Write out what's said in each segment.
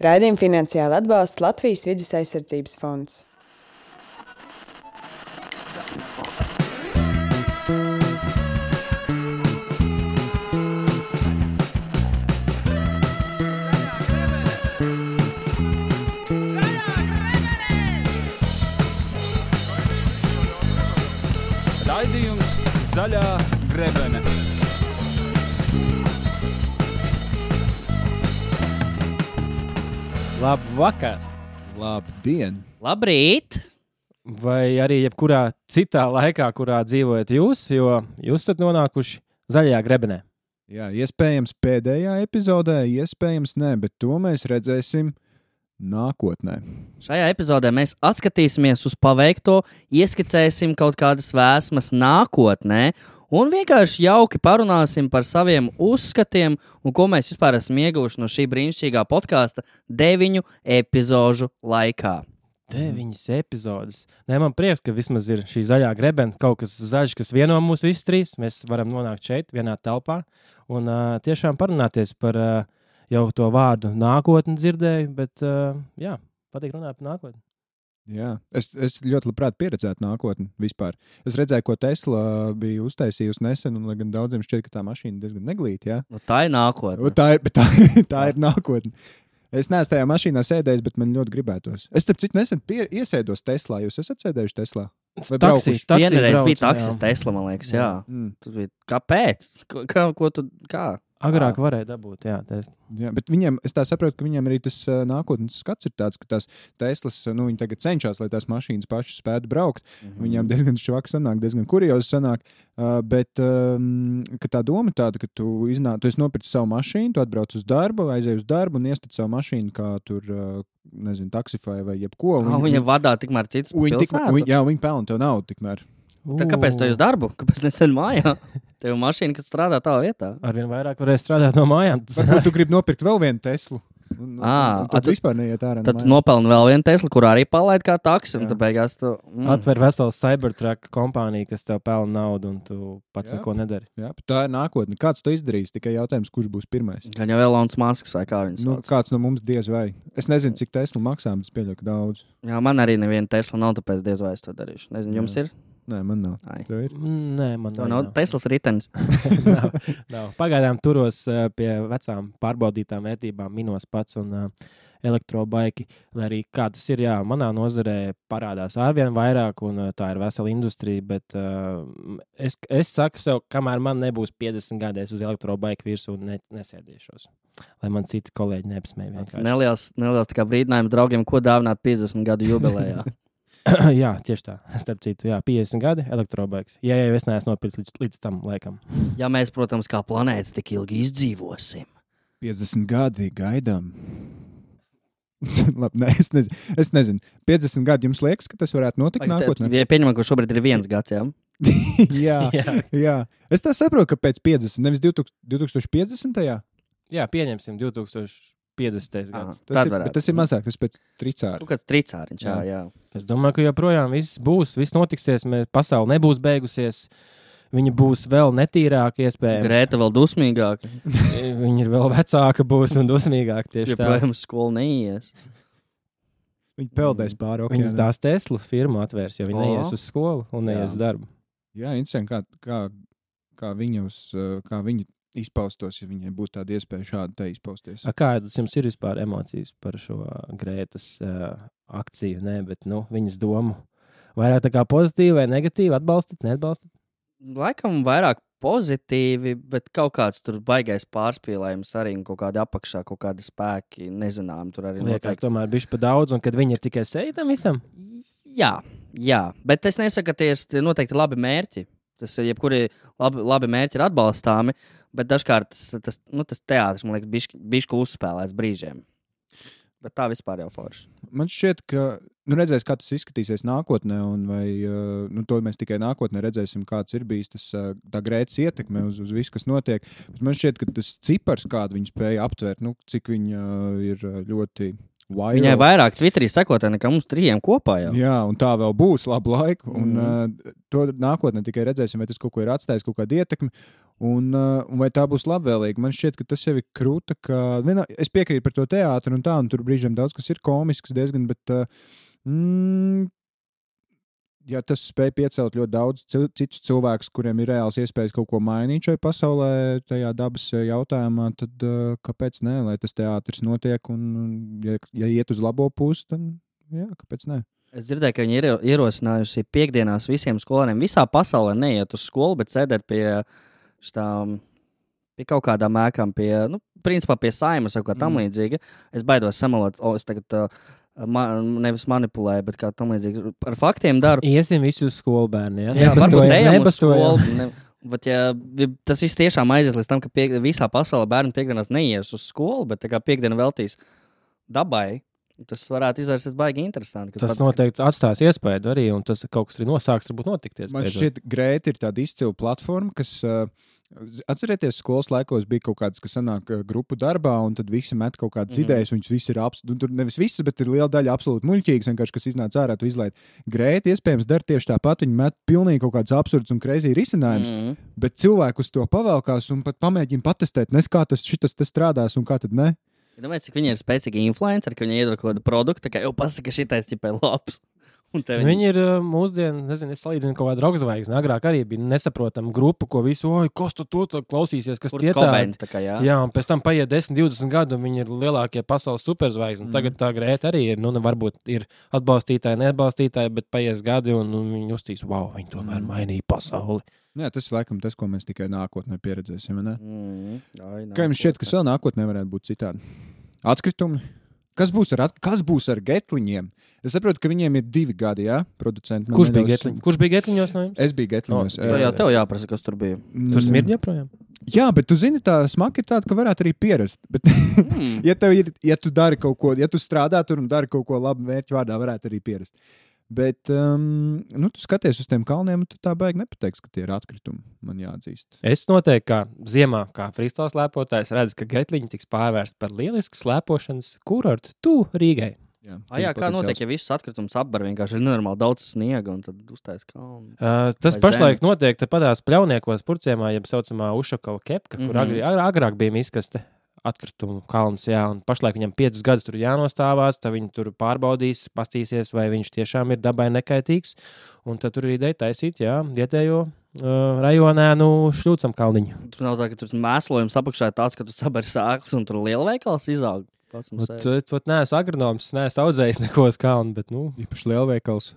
Raidījumu finansiāli atbalsta Latvijas Vides aizsardzības fonds. Raidījums Zaļā grebene. Labvakar! Labdien! Labrīt! Vai arī jebkurā citā laikā, kurā dzīvojat jūs, jo jūs esat nonākuši zaļajā grebenē. Jā, iespējams pēdējā epizodē, iespējams nē, bet to mēs redzēsim nākotnē. Šajā epizodē mēs atskatīsimies uz paveikto, ieskicēsim kaut kādas vēsmas nākotnē un vienkārši jauki parunāsim par saviem uzskatiem un ko mēs vispār esam ieguvuši no šī brīnišķīgā podkāsta 9 epizožu laikā. 9 epizodes. Nē, man prieks, ka vismaz ir šī zaļā grebena, kaut kas zaļš, kas vieno mūs visus trīs. Mēs varam nonākt šeit, vienā telpā un tiešām parunāties par jau to vārdu nākotni dzirdēju, bet jā, patīk runāt par nākotni. Jā, es ļoti labprāt pieredzētu nākotni vispār. Es redzēju, ko Tesla bija uztaisījusi nesen, un lai gan daudziem šķiet, ka tā mašīna diezgan neglīta, jā. Nu, tā ir nākotne. Tā ir nākotne. Es neesmu tajā mašīnā sēdējis, bet man ļoti gribētos. Es starp citu nesen iesēdos Teslā. Jūs esat sēdējuši Teslā? Vai braukuši? Vienreiz brauc, bija taksis Tesla, man liekas, jā. Tas bija, kāpēc? Kā? Agrāk varēja dabūt, jā. Jā, bet viņiem, es tā saprotu, ka viņiem arī tas nākotnes skats ir tāds, ka tās Teslas, viņi tagad cenšas, lai tās mašīnas pašas spētu braukt. Viņām diezgan švaki sanāk, diezgan kuriozi sanāk, bet ka tā doma tāda, ka tu esi nopircis savu mašīnu, tu atbrauc uz darbu, aizej uz darbu un iestat savu mašīnu kā tur, nezinu, taksifai vai jebko. Viņa vadā tikmēr citus pilsētu? Jā, viņi pelna tev naudu tikmēr. Tad kāpēc tu ej uz darbu? Kāpēc nesen mājā? Tev ir mašīna, kas strādā tavā vietā. Arvien vairāk varēs strādāt no mājām. Varbūt tu gribi nopirkt vēl vienu Teslu. Tad vispār neiet ārā. Tad nopelni vēl vienu Teslu, kurā arī palaid kā taksi. Un tad beigās tu... Atver veselu Cybertruck kompāniju, kas tev pelna naudu, un tu pats neko nedari. Jā, tā ir nākotne. Kāds to izdarīs? Tikai jautājums, kurš būs pirmais. Gan jau Elonas Masks vai kā viņas sauc. Kāds no mums diez vai. Es nezinu, cik Tesla maksā, bet es pieļauju, ka daudz. Jā, man arī neviena Tesla nav, tāpēc diez vai es to darīšu. Nezinu, jums ir? Nē, man nav. Tev ir? Nē, man nav. Teslas ritenis. nav. Pagaidām turos pie vecām pārbaudītām vērtībām, minos pats un elektrobaiki, lai arī kā tas ir, jā, manā nozarē parādās arvien vairāk, un tā ir vesela industrija, bet es saku sev, kamēr man nebūs 50 gadēs uz elektrobaiku virsū, nesēdīšos, lai man citi kolēģi neapsmēj vienkārši. Neliels tā kā brīdinājums draugiem, ko dāvināt 50 gadu jubilejā. Jā, tieši tā. Starp citu, jā, 50 gadi elektrobaiks. Ja jau es neesmu nopircis līdz tam laikam. Ja mēs, protams, kā planēta tik ilgi izdzīvosim. 50 gadi gaidām. Labi, es nezinu. 50 gadi jums liekas, ka tas varētu notikt nākotnē? Ja pieņemam, ka šobrīd ir 1 gads, jā? jā. Es tā saprotu, ka pēc 50, nevis 2050. Jā, pieņemsim 2050. gads. Tas ir mazāk, tas pēc tricāra. Kāds tricāriņš, jā. Es domāju, ka joprojām viss notiksies, pasaule nebūs beigusies, viņa būs vēl netīrāka iespējams. Grēta vēl dusmīgāka. Viņa ir vēl vecāka būs un dusmīgāka tieši tā. Joprojām skolu neies. Viņa peldēs pāri okeānam. Viņa tās Tesla firmu atvērs, jo viņa neies uz skolu un neies uz darbu. Jā, interesanti, kā viņa izpaustos, ja viņai būtu tāda iespēja šādi te izpausties. Kādas jums ir vispār emocijas par šo Grētas akciju? Nē, bet viņas domu vairāk tā kā pozitīvi vai negatīvi, atbalstat, neatbalstat? Laikam vairāk pozitīvi, bet kaut kāds tur baigais pārspīlējums arī un kaut kādi apakšā, kaut kādi spēki, nezinām, tur arī liekas, tomēr bišķi pa daudz, un kad viņi ir tikai seja tam visam? Jā, bet es nesaku, ka tie ir noteikti labi mērķi. Tas ir jebkuri labi mērķi ir atbalstāmi, bet dažkārt tas teātris, man liekas, bišķi uzspēlēts brīžiem. Bet tā vispār jau forši. Man šķiet, ka redzēs, kā tas izskatīsies nākotnē, un vai to mēs tikai nākotnē redzēsim, kāds ir bijis tā Grētas ietekme uz visu, kas notiek. Bet man šķiet, ka tas cipars, kādu viņi spēja aptvērt, cik viņa ir ļoti viral. Viņai vairāk Twitterī sekotāji nekā mums 3 kopā jau. Jā, un tā vēl būs labu laiku. Un to nākotnē tikai redzēsim, vai tas kaut ko ir atstājis, kaut kādu ietekmi. Un vai tā būs labvēlīga? Man šķiet, ka tas jau ir krūta. Es piekrītu par to teātru un tā, un tur brīžiem daudz kas ir komisks diezgan, bet ja tas spēj piecelt ļoti daudz citus cilvēkus, kuriem ir reāls iespējas kaut ko mainīt šai pasaulē, tajā dabas jautājumā, tad kāpēc ne, lai tas teātris notiek, un ja iet uz labo pusi, tad jā, kāpēc ne? Es dzirdēju, ka viņi ir ierosinājusi piekdienās visiem skolēniem visā pasaulē neiet uz skolu, bet sēdēt pie kaut kādām ēkām, principā pie Saimas vai kā tam līdzīga. Es baidos samalot, es tagad nevis manipulēju, bet kā tam līdzīgi ar faktiem daru. Iesim visi uz skolu bērni, ja? Jā, varbūt ejam uz skolu. Bet ja tas viss tiešām aizies līdz tam, ka visā pasaulē bērni piekdienās neies uz skolu, bet tā kā piekdiena veltīs dabai, tas varētu izvērsties baigi interesanti. Tas noteikti atstās iespēju arī, un tas kaut kas arī nosāks, varbūt notikties. Man šķiet, Grēta ir tāda izcila platforma, kas, atcerieties, skolas laikos bija kaut kāds, kas sanāk grupu darbā, un tad visi met kaut kādas idejas, un visi ir tur nevis visas, bet ir liela daļa absolūti muļķīgas, vienkārši, kas iznāca ārā, tu izlaid. Grēta iespējams dara tieši tāpat, viņi met pilnīgi kaut kāds absurds un crazy risinājums, bet cilvēku uz to pavelkās un pat pamēģina patestēt, nes kā tas strādās un kā tad ne. Domāju, cik viņi ir spēcīgi influenceri, ka viņi iedod kaut kādu produktu, ka jau pasaka, šitais ķipai labs. Viņi ir mūsdienu, nezinu, es salīdzinu kaut kādu rockzvaigzni. Agrāk arī bija nesaprotama grupa, ko visu, kas to klausīsies, kas tie tādi. Jā, un pēc tam paiet 10-20 gadu, un viņi ir lielākie pasaules superzvaigzni. Tagad tā Grēta arī ir, varbūt ir atbalstītāji, neatbalstītāji, bet paies gadi, un viņi uztīs, viņi tomēr mainīja pasauli. Jā, tas ir laikam tas, ko mēs tikai nākotnē pieredzēsim, ne? Kā jums šķiet, kas vēl nākotnē varētu būt citādi? Atkritumi? Kas būs ar getliņiem? Es saprotu, ka viņiem ir 2 gadi, jā, producenti. Kurš bija getliņos no jums? Es biju getliņos. Tev jāprasa, kas tur bija. Tur smird joprojām? Jā, bet tu zini, tā smaka ir tāda, ka varētu arī pierast. Bet, ja tu dari kaut ko, ja tu strādā tur un dari kaut ko labu mērķu vārdā, varētu arī pierast. Bet, tu skaties uz tiem kalniem, un tu tā baigi nepateiksi, ka tie ir atkritumi, man jāatzīst. Es noteikti, kā ziemā, kā freestyle slēpotājs, redzu, ka getliņi tiks pārvērst par lielisku slēpošanas kurortu Rīgai. Jā, kā notiek, ja visus atkritumus apbar, vienkārši ir nenormāli daudz sniega, un tad uztais kalnu. Tas pašlaik notiek padās Pļauniekos Purciemā, jeb saucamā Ušakova kepka, kur agrāk bija miskaste. Atkritumu kalns, jā, un pašlaik viņam 5 gadus tur jānostāvās, tad viņi tur pārbaudīs, pastīsies, vai viņš tiešām ir dabai nekaitīgs, un tad tur ir ideja taisīt, vietējo rajonēnu šļūcam kalniņu. Tur nav tā, ka tur mēslojums apakšā ir tāds, ka tu sabari sēklas un tur lielveikals izaug. Neesmu agronoms, neesmu audzējis neko uz kalnu, bet, īpaši lielveikals.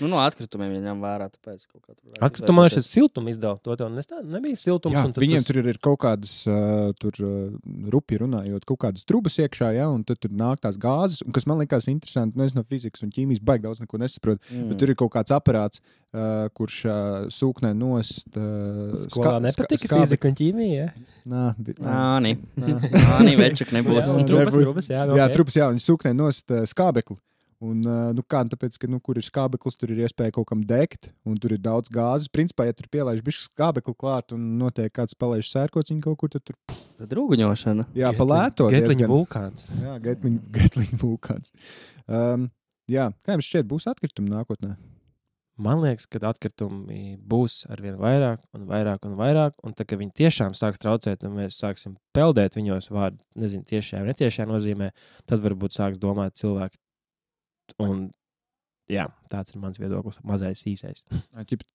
No atkritumiem viņam vērā, tāpēc kaut kā tur. Atkritumā šeit siltumu izdala, to tev nebija siltums. Jā, viņiem tur ir kaut kādas, rupi runājot, kaut kādas trubas iekšā, un tad tur nāk tās gāzes, un kas man likās interesanti, es no fizikas un ķīmijas baigi daudz neko nesaprotu, bet tur ir kaut kāds aparāts, kurš sūknē nost. Skolā nepatika fizika un ķīmija, Nāni, večuk nebūs. Trubas, viņi sūknē nost skābekli. Un, tāpēc, ka, kur ir skābeklis, tur ir iespēja kaut kam degt, un tur ir daudz gāzes. Principā, ja tur pielaiž bišķi skābekli klāt un notiek kāds palaiž sērkociņu kaut kur, tad tur... Tad rūguņošana. Jā, palēto. Getliņu vulkāns. Jā, getliņu vulkāns. Jā, kā jums šķiet, būs atkritumi nākotnē? Man liekas, ka atkritumi būs arvien vairāk un vairāk un vairāk, un tā, ka viņi tiešām sāks traucēt, un mēs sāksim peldēt viņos vārdu, nezinu, tiešajā vai netiešajā nozīmē, tad varbūt sāks domāt cilvēki. Un, jā, tāds ir mans viedoklis, mazais īsais.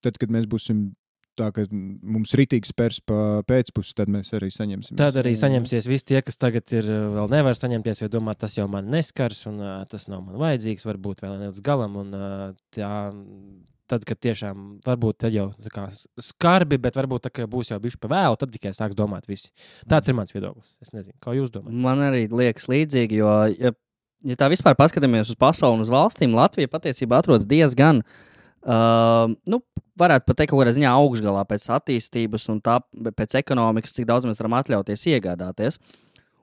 Tad, kad mēs būsim tā, ka mums ritīgi spērs pa pēcpusi, tad mēs arī saņemsim. Tad arī saņemsies visi tie, kas tagad ir vēl nevar saņemties, jo domā, tas jau man neskars, un tas nav man vajadzīgs, varbūt vēl ne līdz galam, un tad, kad tiešām, varbūt tad jau tā kā skarbi, bet varbūt tā, ka būs jau bišķi pa vēlu, tad tikai sāks domāt visi. Tāds ir mans viedoklis. Es nezinu, kā jūs domājat. Man arī liekas līdzīgi, jo, ja tā vispār paskatāmies uz pasauli un uz valstīm, Latvija patiesībā atrodas diezgan, varētu pat teikt, kaut kādā ziņā augšgalā pēc attīstības un tā pēc ekonomikas, cik daudz mēs varam atļauties iegādāties.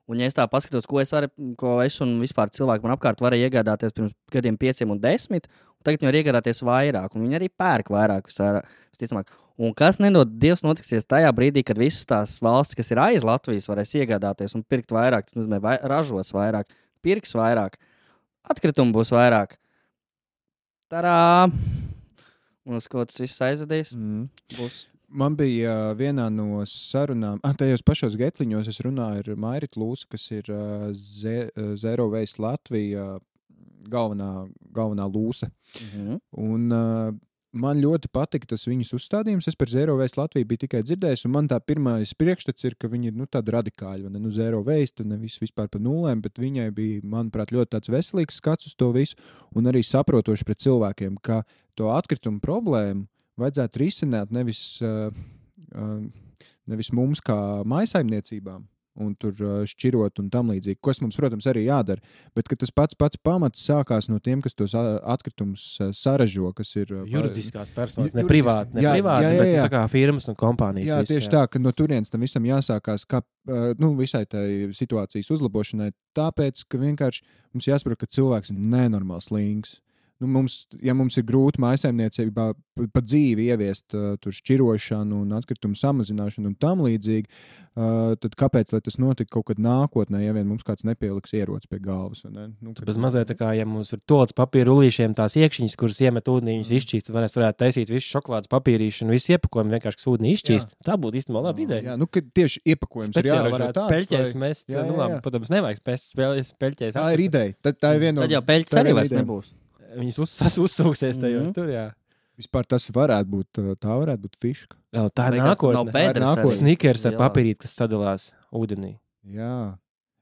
Un, ja es tā paskatos, ko es un vispār cilvēki man apkārt varēja iegādāties pirms gadiem 5 un 10, un tagad viņi var iegādāties vairāk, un viņi arī pērk vairāk visticamāk. Un kas nedod Dievs notiksies tajā brīdī, kad visas tās valstis, kas ir aiz Latvijas, varēs iegādāties un pirkt vairāk, tas nozīmē ražos vairāk, pirks vairāk, atkritumu būs vairāk. Tarā! Un uz ko tas viss aizvedīs? Būs. Man bija vienā no sarunām, tajos pašos Getliņos es runāju ar Mairitu Lūsu, kas ir Zero Waste Latvija galvenā lūsa. Un man ļoti patika tas viņas uzstādījums. Es par Zero Waste Latviju biju tikai dzirdējis, un man tā pirmais priekšstats ir, ka viņi ir tādi radikāļi. Zero Waste, nevis vispār par nulēm, bet viņai bija, manuprāt, ļoti tāds veselīgs skats uz to visu, un arī saprotoši pret cilvēkiem, ka to atkritumu problēmu vajadzētu risināt nevis mums kā mājsaimniecībām un tur šķirot un tam līdzīgi, kas mums, protams, arī jādara, bet ka tas pats pamats sākās no tiem, kas tos atkritumus saražo, kas ir juridiskās personas, ne privāti, bet tā kā firmas un kompānijas. Jā, tieši tā, ka no turienes tam visam jāsākās kā, visai tai situācijas uzlabošanai, tāpēc, ka vienkārši mums jāsaprot, ka cilvēks ir nenormāls slings. Mums ir grūti mājsaimniecībā pa dzīvi ieviest tur šķirošanu un atkritumu samazināšanu un tam līdzīgi, tad kāpēc, lai tas notika kaut kad nākotnē, ja vien mums kāds nepieliks ieroci pie galvas? Ne? Bez mazliet tā kā, ja mums ir toals papīra rullīšiem tās iekšķiņas, kuras iemet ūdenī, viņas izšķīst, tad mēs varētu taisīt visu šokolādes papīrīšu un visu iepakojumu vienkārši ūdenī izšķīst. Tā būtu īstenībā laba ideja. Jā, ka tieši iepakojums ir jāražo tāds. Peļķēs mest, labi, protams, nevajag spēst peļķēs. Tā ir ideja. Tā ir viena no... Tad jau peļķes arī vairs nebūs. Viņas uzsūksies tajos tur, jā. Vispār tas varētu būt fiška. Tā ir nākotne. Snickers ar papīrīt, kas sadalās ūdenī. Jā.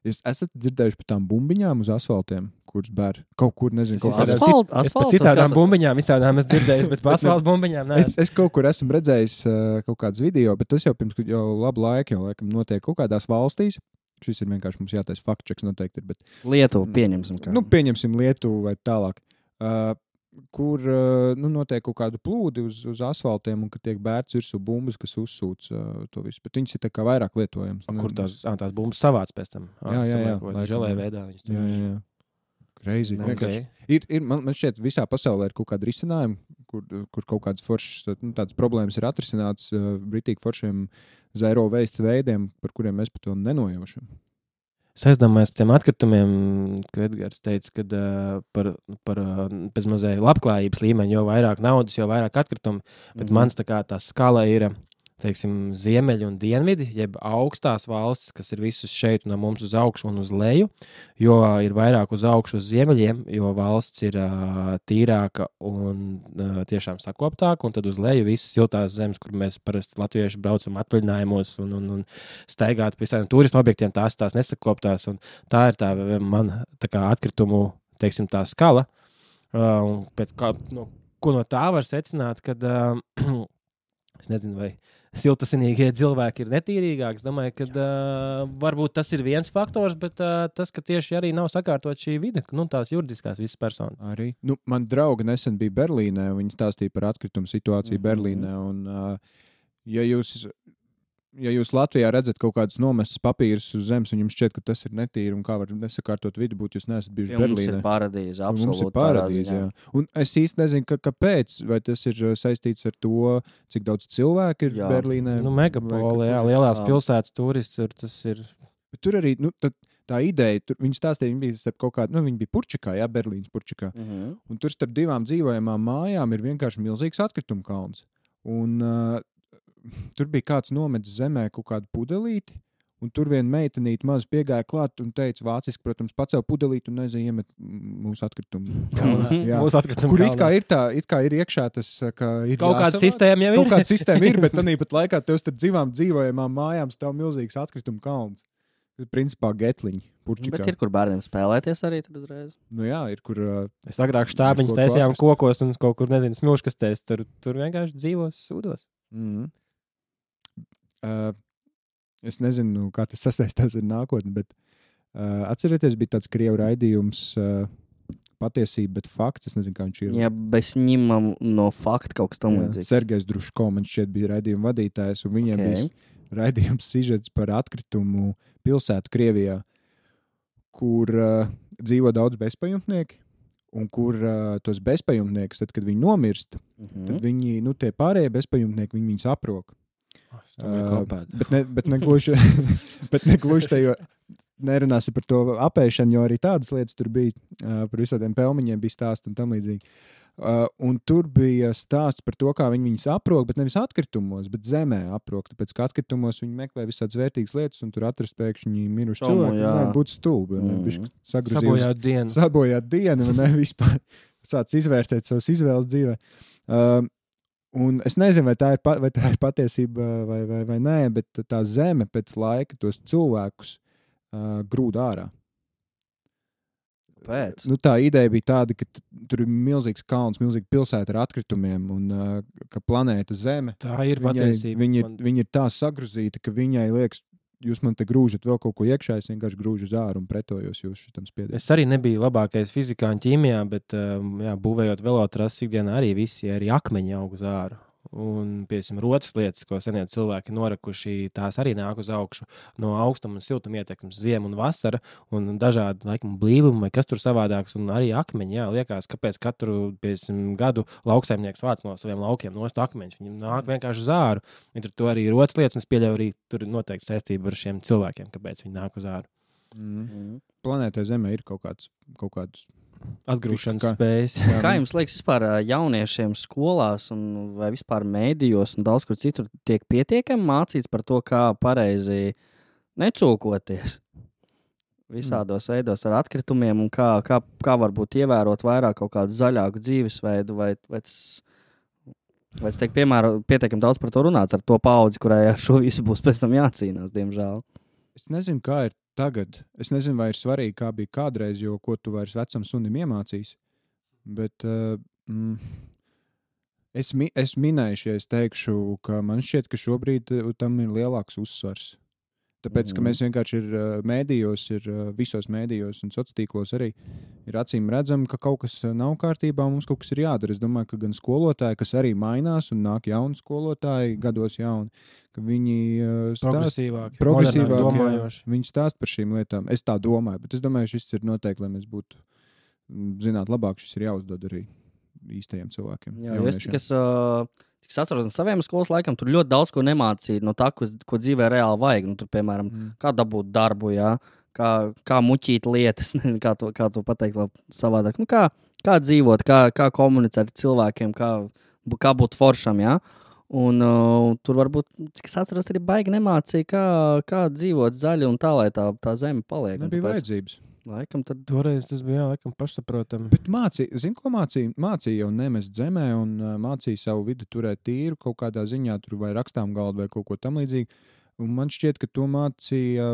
Esat dzirdējuši par tām bumbiņām uz asfaltiem, kuras bēr kaut kur, nezinu, kaut asfaltu. Es par citādām bumbiņām visādām esmu dzirdējis, bet par asfaltu bumbiņām nē. Es kaut kur esmu redzējis kaut kādas video, bet tas jau pirms labu laiku, jau laikam notiek kaut kādās valstīs. Šis ir vienkārši mums jātais fact-checks noteikti ir, bet... Lietuvu pieņemsim. Pieņemsim Lietuvu vai tālāk. Kur notiek kaut kādu plūdi uz asfaltiem un ka tiek bērts virsū bumbas, kas uzsūc to visu. Bet viņas ir tā kā vairāk lietojams. Kur tās bumbas savāc pēc tam? Jā. Želē veidā viņas tur. Jā. Crazy. Man šķiet, visā pasaulē ir kaut kāda risinājuma, kur kaut kādas foršas, tādas problēmas ir atrisināts britīgi foršiem zero waste veidiem, par kuriem mēs pat vēl nenojaušam. Es aizdomājos par tiem atkritumiem, ka Edgars teica, ka par pēc mazliet labklājības līmeņa, jo vairāk naudas, jo vairāk atkritumu, bet mans tā kā tā skala ir, teiksim, ziemeļi un dienvidi, jeb augstās valstis, kas ir visas šeit no mums uz augšu un uz leju, jo ir vairāk uz augšu uz ziemeļiem, jo valsts ir tīrāka un tiešām sakoptāka, un tad uz leju visas siltās zemes, kur mēs parasti latvieši braucam atvaļinājumos un staigāt pie visādiem turismu objektiem, tās nesakoptās, un tā ir tā man tā kā atkritumu, teiksim, tā skala, un pēc kā, ko no tā var secināt, kad es nezinu, vai siltasinīgie cilvēki ir netīrīgāki. Es domāju, ka varbūt tas ir viens faktors, bet tas, ka tieši arī nav sakārtot šī vide, tās juridiskās visas personas. Arī. Man drauga nesen bija Berlīnē, un viņi stāstīja par atkritumu situāciju Berlīnē, un ja jūs Latvijā redzat kaut kādus nomestus papīrus uz zemes, un jums šķiet, ka tas ir netīri, un kā var nesakārtot vidi būt, jūs neesat bijuši Berlīnē. Mums ir paradīze, absolūti. Mums ir paradīze, jā. Un es īsti nezinu, kāpēc, vai tas ir saistīts ar to, cik daudz cilvēku ir Berlīnē. Megapoli, jā, lielās pilsētas turisti, tas ir... Bet tur arī, tā ideja, viņi stāstīja, viņi bija starp kaut kādu, viņi bija Purčikā, jā, Berlīnas Purčikā, un tur starp divām dzīvojamām mājām ir vienkārši milzīgs atkritumu kalns. Un tur bija kāds nometis zemē kaut kādu pudelīti, un tur viena meitenīte maz piegāja klāt un teica vāciski, protams, pacēl pudelīti un iemet mūsu atkritumu. Kur it kā ir iekšā tas, ka ir kaut kāda sistēma jau ir. Kaut kāda sistēma ir, bet tāpat laikā tev starp divām dzīvojamām mājām stāv milzīgs atkritumu kalns. Principā Getliņi, Purčikā. Bet ir, kur bērniem spēlēties arī tad uzreiz? Jā, ir, kur... Es agrāk štābiņas taisījām kokos un kaut kur, nezinu, smilškastēs, tur vienkārši dzīvos sūdos. Es nezinu, kā tas sasaistās ar nākotni, bet atcerieties, bija tāds krievu raidījums patiesība, bet fakts, es nezinu, kā viņš ir. Jā, bez ņemam no fakta kaut kas tam līdzīgs. Sergejs Druško, man šķiet bija raidījuma vadītājs, un viņiem bija raidījums sižets par atkritumu pilsētu Krievijā, kur dzīvo daudz bezpajumtnieki, un kur tos bezpajumtniekus, tad, kad viņi nomirst, tad viņi, tie pārējie bezpajumtnieki, viņus aprok. Bet negluži te, jo nerunāsi par to apēšanu, jo arī tādas lietas tur bija, par visādiem pelmiņiem bija stāsti un tam līdzīgi. Un tur bija stāsts par to, kā viņi viņus aprok, bet nevis atkritumos, bet zemē aprok. Tāpēc, ka atkritumos viņi meklē visādas vērtīgas lietas, un tur atrast pēkšņi miruši cilvēki. Nē, būtu stulbi. Sabojāt dienu, un ne vispār sāc izvērtēt savas izvēles dzīvē. Un es nezinu, vai tā ir patiesība vai nē, bet tā zeme pēc laika tos cilvēkus grūd ārā. Pēc. Nu, tā ideja bija tāda, ka tur ir milzīgs kalns, milzīga pilsēta ar atkritumiem un ka planēta Zeme. Tā ir patiesība. Viņa ir tā sagruzīta, ka viņai liekas, jūs man te grūžat vēl kaut ko iekšā, es vienkārši grūžu uz āru un pretojos jūs šitam spiedienam. Es arī nebiju labākais fizikā un ķīmijā, bet būvējot velotrases ikdienā arī visi arī akmeņi aug uz āru. Un, piemēram, rotas lietas, ko senie cilvēki norakuši, tās arī nāk uz augšu no augstuma un siltuma ietekmes, ziema un vasara, un dažādi, laikam, blīvumi vai kas tur savādāks, un arī akmeņi, liekas, kāpēc katru, piemēram, gadu lauksaimnieks vāc no saviem laukiem nost akmeņus, viņi nāk vienkārši uz āru, un tur arī ir rotas lietas, un es pieļauju arī tur noteikti saistība ar šiem cilvēkiem, kāpēc viņi nāk uz āru. Planētai Zemē ir kaut kāds atgrūšanas spējas. Kā jums liekas, vispār jauniešiem skolās vai vispār mēdījos un daudz kur citur tiek pietiekami mācīts par to, kā pareizi necūkoties visādos veidos ar atkritumiem un kā varbūt ievērot vairāk kaut kādu zaļāku dzīvesveidu vai tas tiek pietiekami daudz par to runāts ar to paudzi, kurai ar šo visu būs pēc tam jācīnās, diemžēl. Es nezinu, kā ir tagad. Es nezinu, vai ir svarīgi, kā bija kādreiz, jo ko tu vairs vecam sunim iemācīs. Bet es minēšu, ja es teikšu, ka man šķiet, ka šobrīd tam ir lielāks uzsvars. Tāpēc, ka mēs vienkārši visos mēdījos un sociālos arī ir acīm redzam, ka kaut kas nav kārtībā un mums kaut kas ir jādara. Es domāju, ka gan skolotāji, kas arī mainās un nāk jauni skolotāji, gados jauni, ka viņi progresīvāk viņi stāst par šīm lietām. Es tā domāju, bet es domāju, šis ir noteikti, lai mēs būtu zināt labāk, šis ir jāuzdod arī īstajiem cilvēkiem. Jā, es atceros no saviem skolas laikam, tur ļoti daudz ko nemācīja no tā, ko dzīvē reāli vajag. Nu, tur, piemēram, kā dabūt darbu, kā muķīt lietas, kā to pateikt vēl savādāk. Nu, kā dzīvot, kā komunicēt ar cilvēkiem, kā būt foršam, Un tur varbūt, cik es atceros, arī baigi nemācīja, kā dzīvot zaļi un tā, lai tā zeme paliek. Nebija vajadzības. Laikam tad... Toreiz tas bija, pašsaprotami. Bet mācīja jau nemest zemē un mācīja savu vidi turēt tīru kaut kādā ziņā, tur vai rakstām galdu vai kaut ko tam līdzīgi. Un man šķiet, ka to mācīja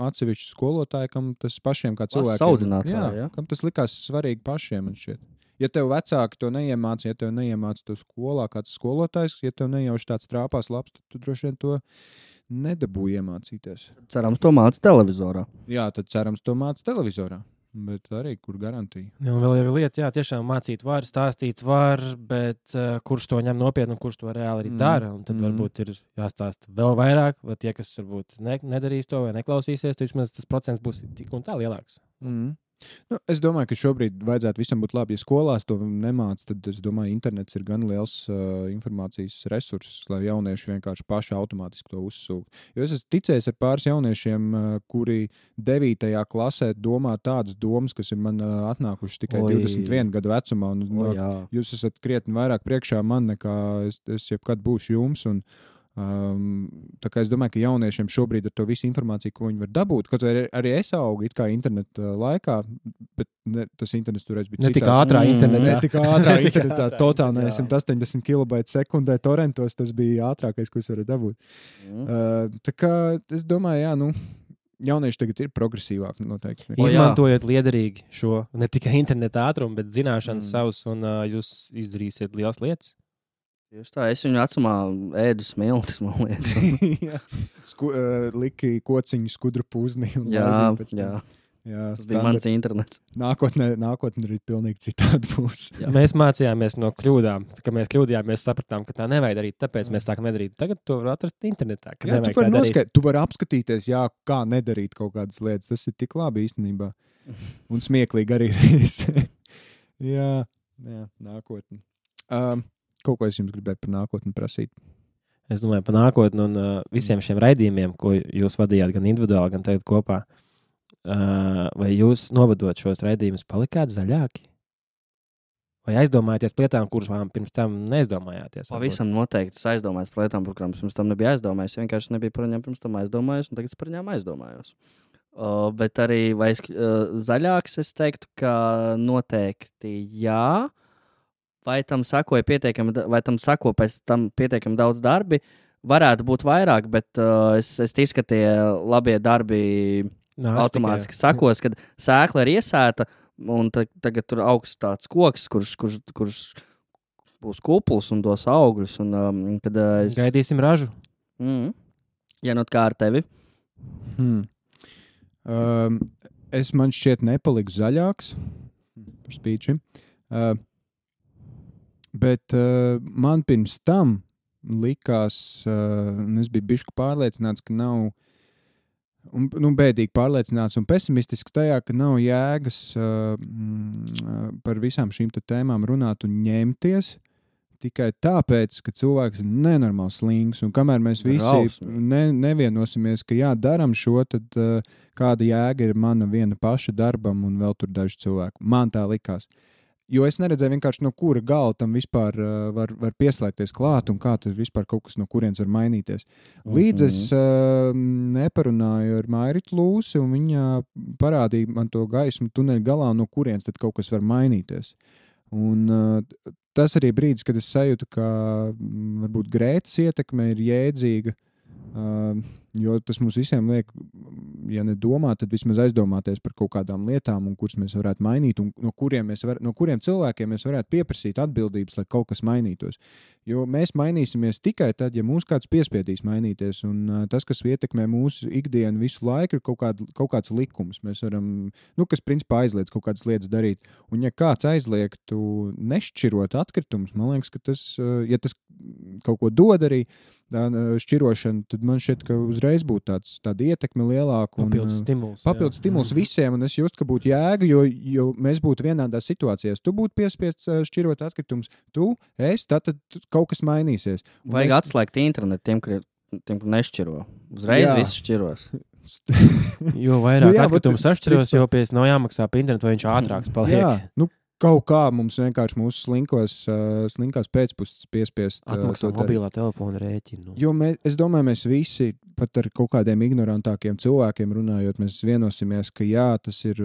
atsevišķi skolotāji, kam tas pašiem kā cilvēkiem. Kam tas likās svarīgi pašiem, man šķiet. Ja tev vecāki to neiemāca, ja tev neiemāca to skolā kāds skolotājs, ja tev nejauši tāds trāpās labs, tad tu droši vien to nedabūji iemācīties. Cerams, to māca televizorā. Jā, tad cerams, to māca televizorā. Bet arī, kur garantija. Jā, un vēl jau lieta, tiešām mācīt var, stāstīt var, bet kurš to ņem nopietni un kurš to reāli arī dara. Un tad varbūt ir jāstāsta vēl vairāk, vai tie, kas varbūt nedarīs to vai neklausīsies, tad vismaz tas procents būs tik un tā lielāks. Nu, es domāju, ka šobrīd vajadzētu visam būt labi. Ja skolās to nemāc, tad es domāju, internets ir gan liels informācijas resurss, lai jaunieši vienkārši paši automātiski to uzsūk. Jo es esmu ticējis ar pāris jauniešiem, kuri 9. klasē domā tādas domas, kas ir man atnākušas tikai 21 gadu vecumā. Un, jūs esat krietni vairāk priekšā man, nekā es jebkad būšu jums. Tā kā es domāju, ka jauniešiem šobrīd ar to visu informāciju, ko viņi var dabūt, kaut arī es augu it kā interneta laikā, bet tas internets toreiz bija citāds. Ne tik ātrā internetā, totāli 180 kilobaita sekundē torrentos, tas bija ātrākais, ko es varu dabūt. Tā kā es domāju, jaunieši tagad ir progresīvāki noteikti. Izmantojot liederīgi šo ne tikai interneta ātrumu, bet zināšanas savus, un jūs izdarīsiet lielas lietas. Just tā, es viņu vecumā ēdu smiltis, man liekas. Liki kociņu skudru pūzni. Jā, tas bija mans internets. Nākotnē arī pilnīgi citādi būs. Mēs mācījāmies no kļūdām. Kad mēs kļūdījāmies, sapratām, ka tā nevajag darīt, tāpēc mēs sākam nedarīt. Tagad to var atrast internetā. Tu vari apskatīties, kā nedarīt kaut kādas lietas. Tas ir tik labi īstenībā. Un smieklīgi arī reizē. Jā, nākotni. Kaut ko es jums gribēju par nākotni prasīt. Es domāju par nākotni un visiem šiem raidījumiem, ko jūs vadījāt gan individuāli, gan tagad kopā. Vai jūs novadot šos raidījumus palikāt zaļāki? Vai aizdomājaties par lietām, kuras pirms tam neaizdomājāties? Pavisam noteikti es aizdomājos par lietām, par kurām pirms tam nebija aizdomājis. Vienkārši nebija par viņām pirms tam aizdomājis, un tagad es par viņām aizdomājos. Bet arī zaļāks es teiktu, ka noteikti jā. Vai tam sako pēc tam pietiekami daudz darbi? Varētu būt vairāk, bet es ticu, ka tie labie darbi automātiski sakos, kad sēkla ir iesēta, un tagad tur augs tāds koks, kurš būs kupls un dos augļus. Kad Gaidīsim ražu. Ja nu kā ar tevi? Man šķiet nepaliks zaļāks par spīčiem. Bet man pirms tam likās, es biju bišķi pārliecināts, ka nav bēdīgi pārliecināts un pesimistisks tajā, ka nav jēgas par visām šīm tēmām runāt un ņemties tikai tāpēc, ka cilvēks ir nenormāli slings, un kamēr mēs visi nevienosimies, ka daram šo, tad kāda jēga ir mana viena paša darbam un vēl tur daži cilvēki. Man tā likās. Jo es neredzēju vienkārši, no kura gala tam vispār var pieslēgties klāt un kā tas vispār kaut kas no kurienes var mainīties. Līdz es neparunāju ar Mairitu Lūsi, un viņa parādīja man to gaismu tuneļa galā, no kurienes tad kaut kas var mainīties. Un tas arī brīdis, kad es sajūtu, ka varbūt Grētas ietekme ir jēdzīga, jo tas mums visiem liek, ja nedomā, tad vismaz aizdomāties par kaut kādām lietām, un kuras mēs varētu mainīt, un no kuriem cilvēkiem mēs varētu pieprasīt atbildības, lai kaut kas mainītos. Jo mēs mainīsimies tikai tad, ja mūs kāds piespiedīs mainīties, un tas, kas ietekmē mūsu ikdienu visu laiku, ir kaut kāds likums. Mēs varam, kas principā aizliedz kaut kādas lietas darīt. Un ja kāds aizliegtu nešķirot atkritumus, man liekas, ka tas, ja tas kaut ko dod arī, šķirošana, tad man šķiet, ka uzreiz būtu tāda ietekme lielāka. Papildus stimuls visiem, un es justu, ka būtu jēga, jo mēs būtu vienādās situācijās. Tu būtu piespiests šķirot atkritumus, tad kaut kas mainīsies. Vajag atslēgt internetu tiem, kur nešķiro. Uzreiz viss šķiros. Jo vairāk atkritumu sašķiros, jo pēc nav jāmaksā pa internetu, vai viņš ātrāks paliek. Jā, kaut kā mums vienkārši mūsu slinkās pēcpusces piespiest atmaksā mobilā telefona rēķinu. Jo es domāju, mēs visi, pat ar kaut kādiem ignorantākiem cilvēkiem runājot, mēs vienosimies, ka tas ir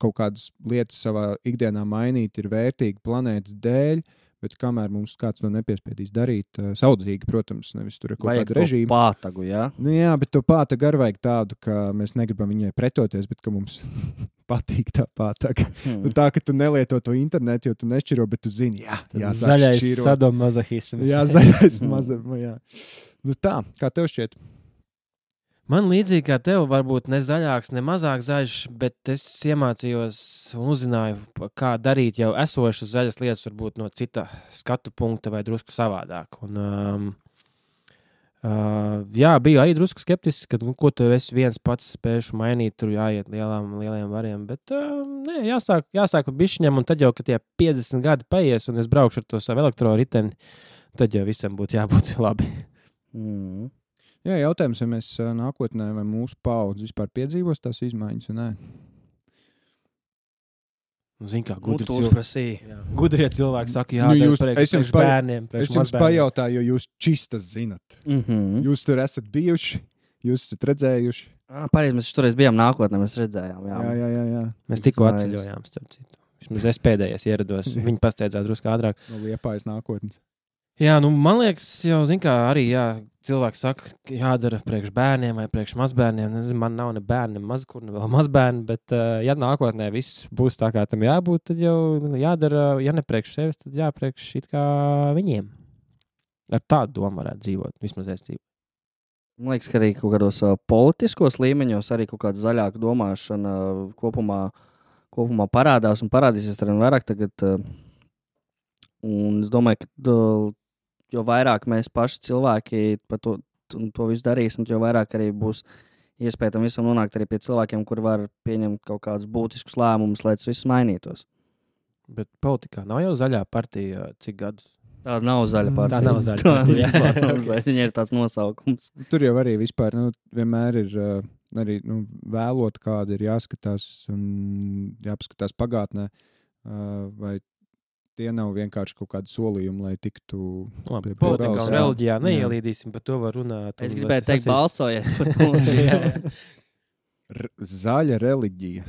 kaut kādas lietas savā ikdienā mainīt, ir vērtīgi planētas dēļ, bet kamēr mums kāds to nepiespiedīs darīt, saudzīgi, protams, nevis tur ir kaut kāda režīma. Vajag to pātagu, jā? Jā, bet to pātagu arī vajag tādu, ka mēs negribam viņai pretoties, bet ka mums patīk tā pātaga. Tā, ka tu nelieto to internetu, jo tu nešķiro, bet tu zini, zaļais sadomazohisms. Jā, zaļais mazohisms, jā. Tā, kā tev šķiet? Man līdzīgi kā tev, varbūt ne zaļāks, ne mazāk zaļš, bet es iemācījos un uzzināju, kā darīt jau esošas zaļas lietas, varbūt no cita skatu punkta vai drusku savādāk. Un, biju arī drusku skeptisks, ka ko tu esi viens pats spējuši mainīt, tur jāiet lieliem variem, bet jāsāk pa bišķiņam, un tad jau, kad tie 50 gadi paies, un es braukšu ar to savu elektroriteni, tad jau visam būtu jābūt labi. Jā, jautājums, vai mēs nākotnē vai mūsu paudze vispār piedzīvos tās izmaiņas, vai nē? Zin kā, gudrie cilvēki saka, priekš bērniem, priekš es jums pajautāju, jo jūs čistas zinat. Jūs tur esat bijuši, jūs esat redzējuši. Pareizi, mēs toreiz bijām nākotnē, mēs redzējām. Jā. Mēs tikko atceļojām, starp citu. Vismaz es pēdējais ierados, viņi pasteidzās drusku ātrāk. No Liepājas nākotnes. Jā, man liekas, jau, arī cilvēki saka, jādara priekš bērniem vai priekš mazbērniem. Man nav ne bērni, ne vēl mazbērni, bet ja nākotnē viss būs tā, kā tam jābūt, tad jau jādara, ja ne priekš sevis, tad jāpriekš it kā viņiem. Ar tādu domu varētu dzīvot, vismaz es dzīvoju. Man liekas, ka arī kaut kādos politiskos līmeņos arī kaut kāda zaļāka domāšana kopumā parādās un parādīsies arī vairāk tagad. Un es domāju, ka jo vairāk mēs paši cilvēki par to visu darīsim, jo vairāk arī būs iespēja tam visam nonākt arī pie cilvēkiem, kuri var pieņemt kaut kādus būtiskus lēmumus, lai tas viss mainītos. Bet politikā nav jau zaļā partija cik gadus? Tā nav zaļa partija. Tā nav zaļa partija. Viņa ir tāds nosaukums. Tur jau arī vispār vienmēr ir arī vēlot, kāda ir jāskatās un jāpaskatās pagātnē vai tie nav vienkārši kaut kādi solījumi, lai tiktu Labi, pie politikā balss, un jā. reliģijā Jā. neielīdīsim, par to var runāt. Es un gribēju teikt, sasīt- balsojiet par to. Zaļa reliģija.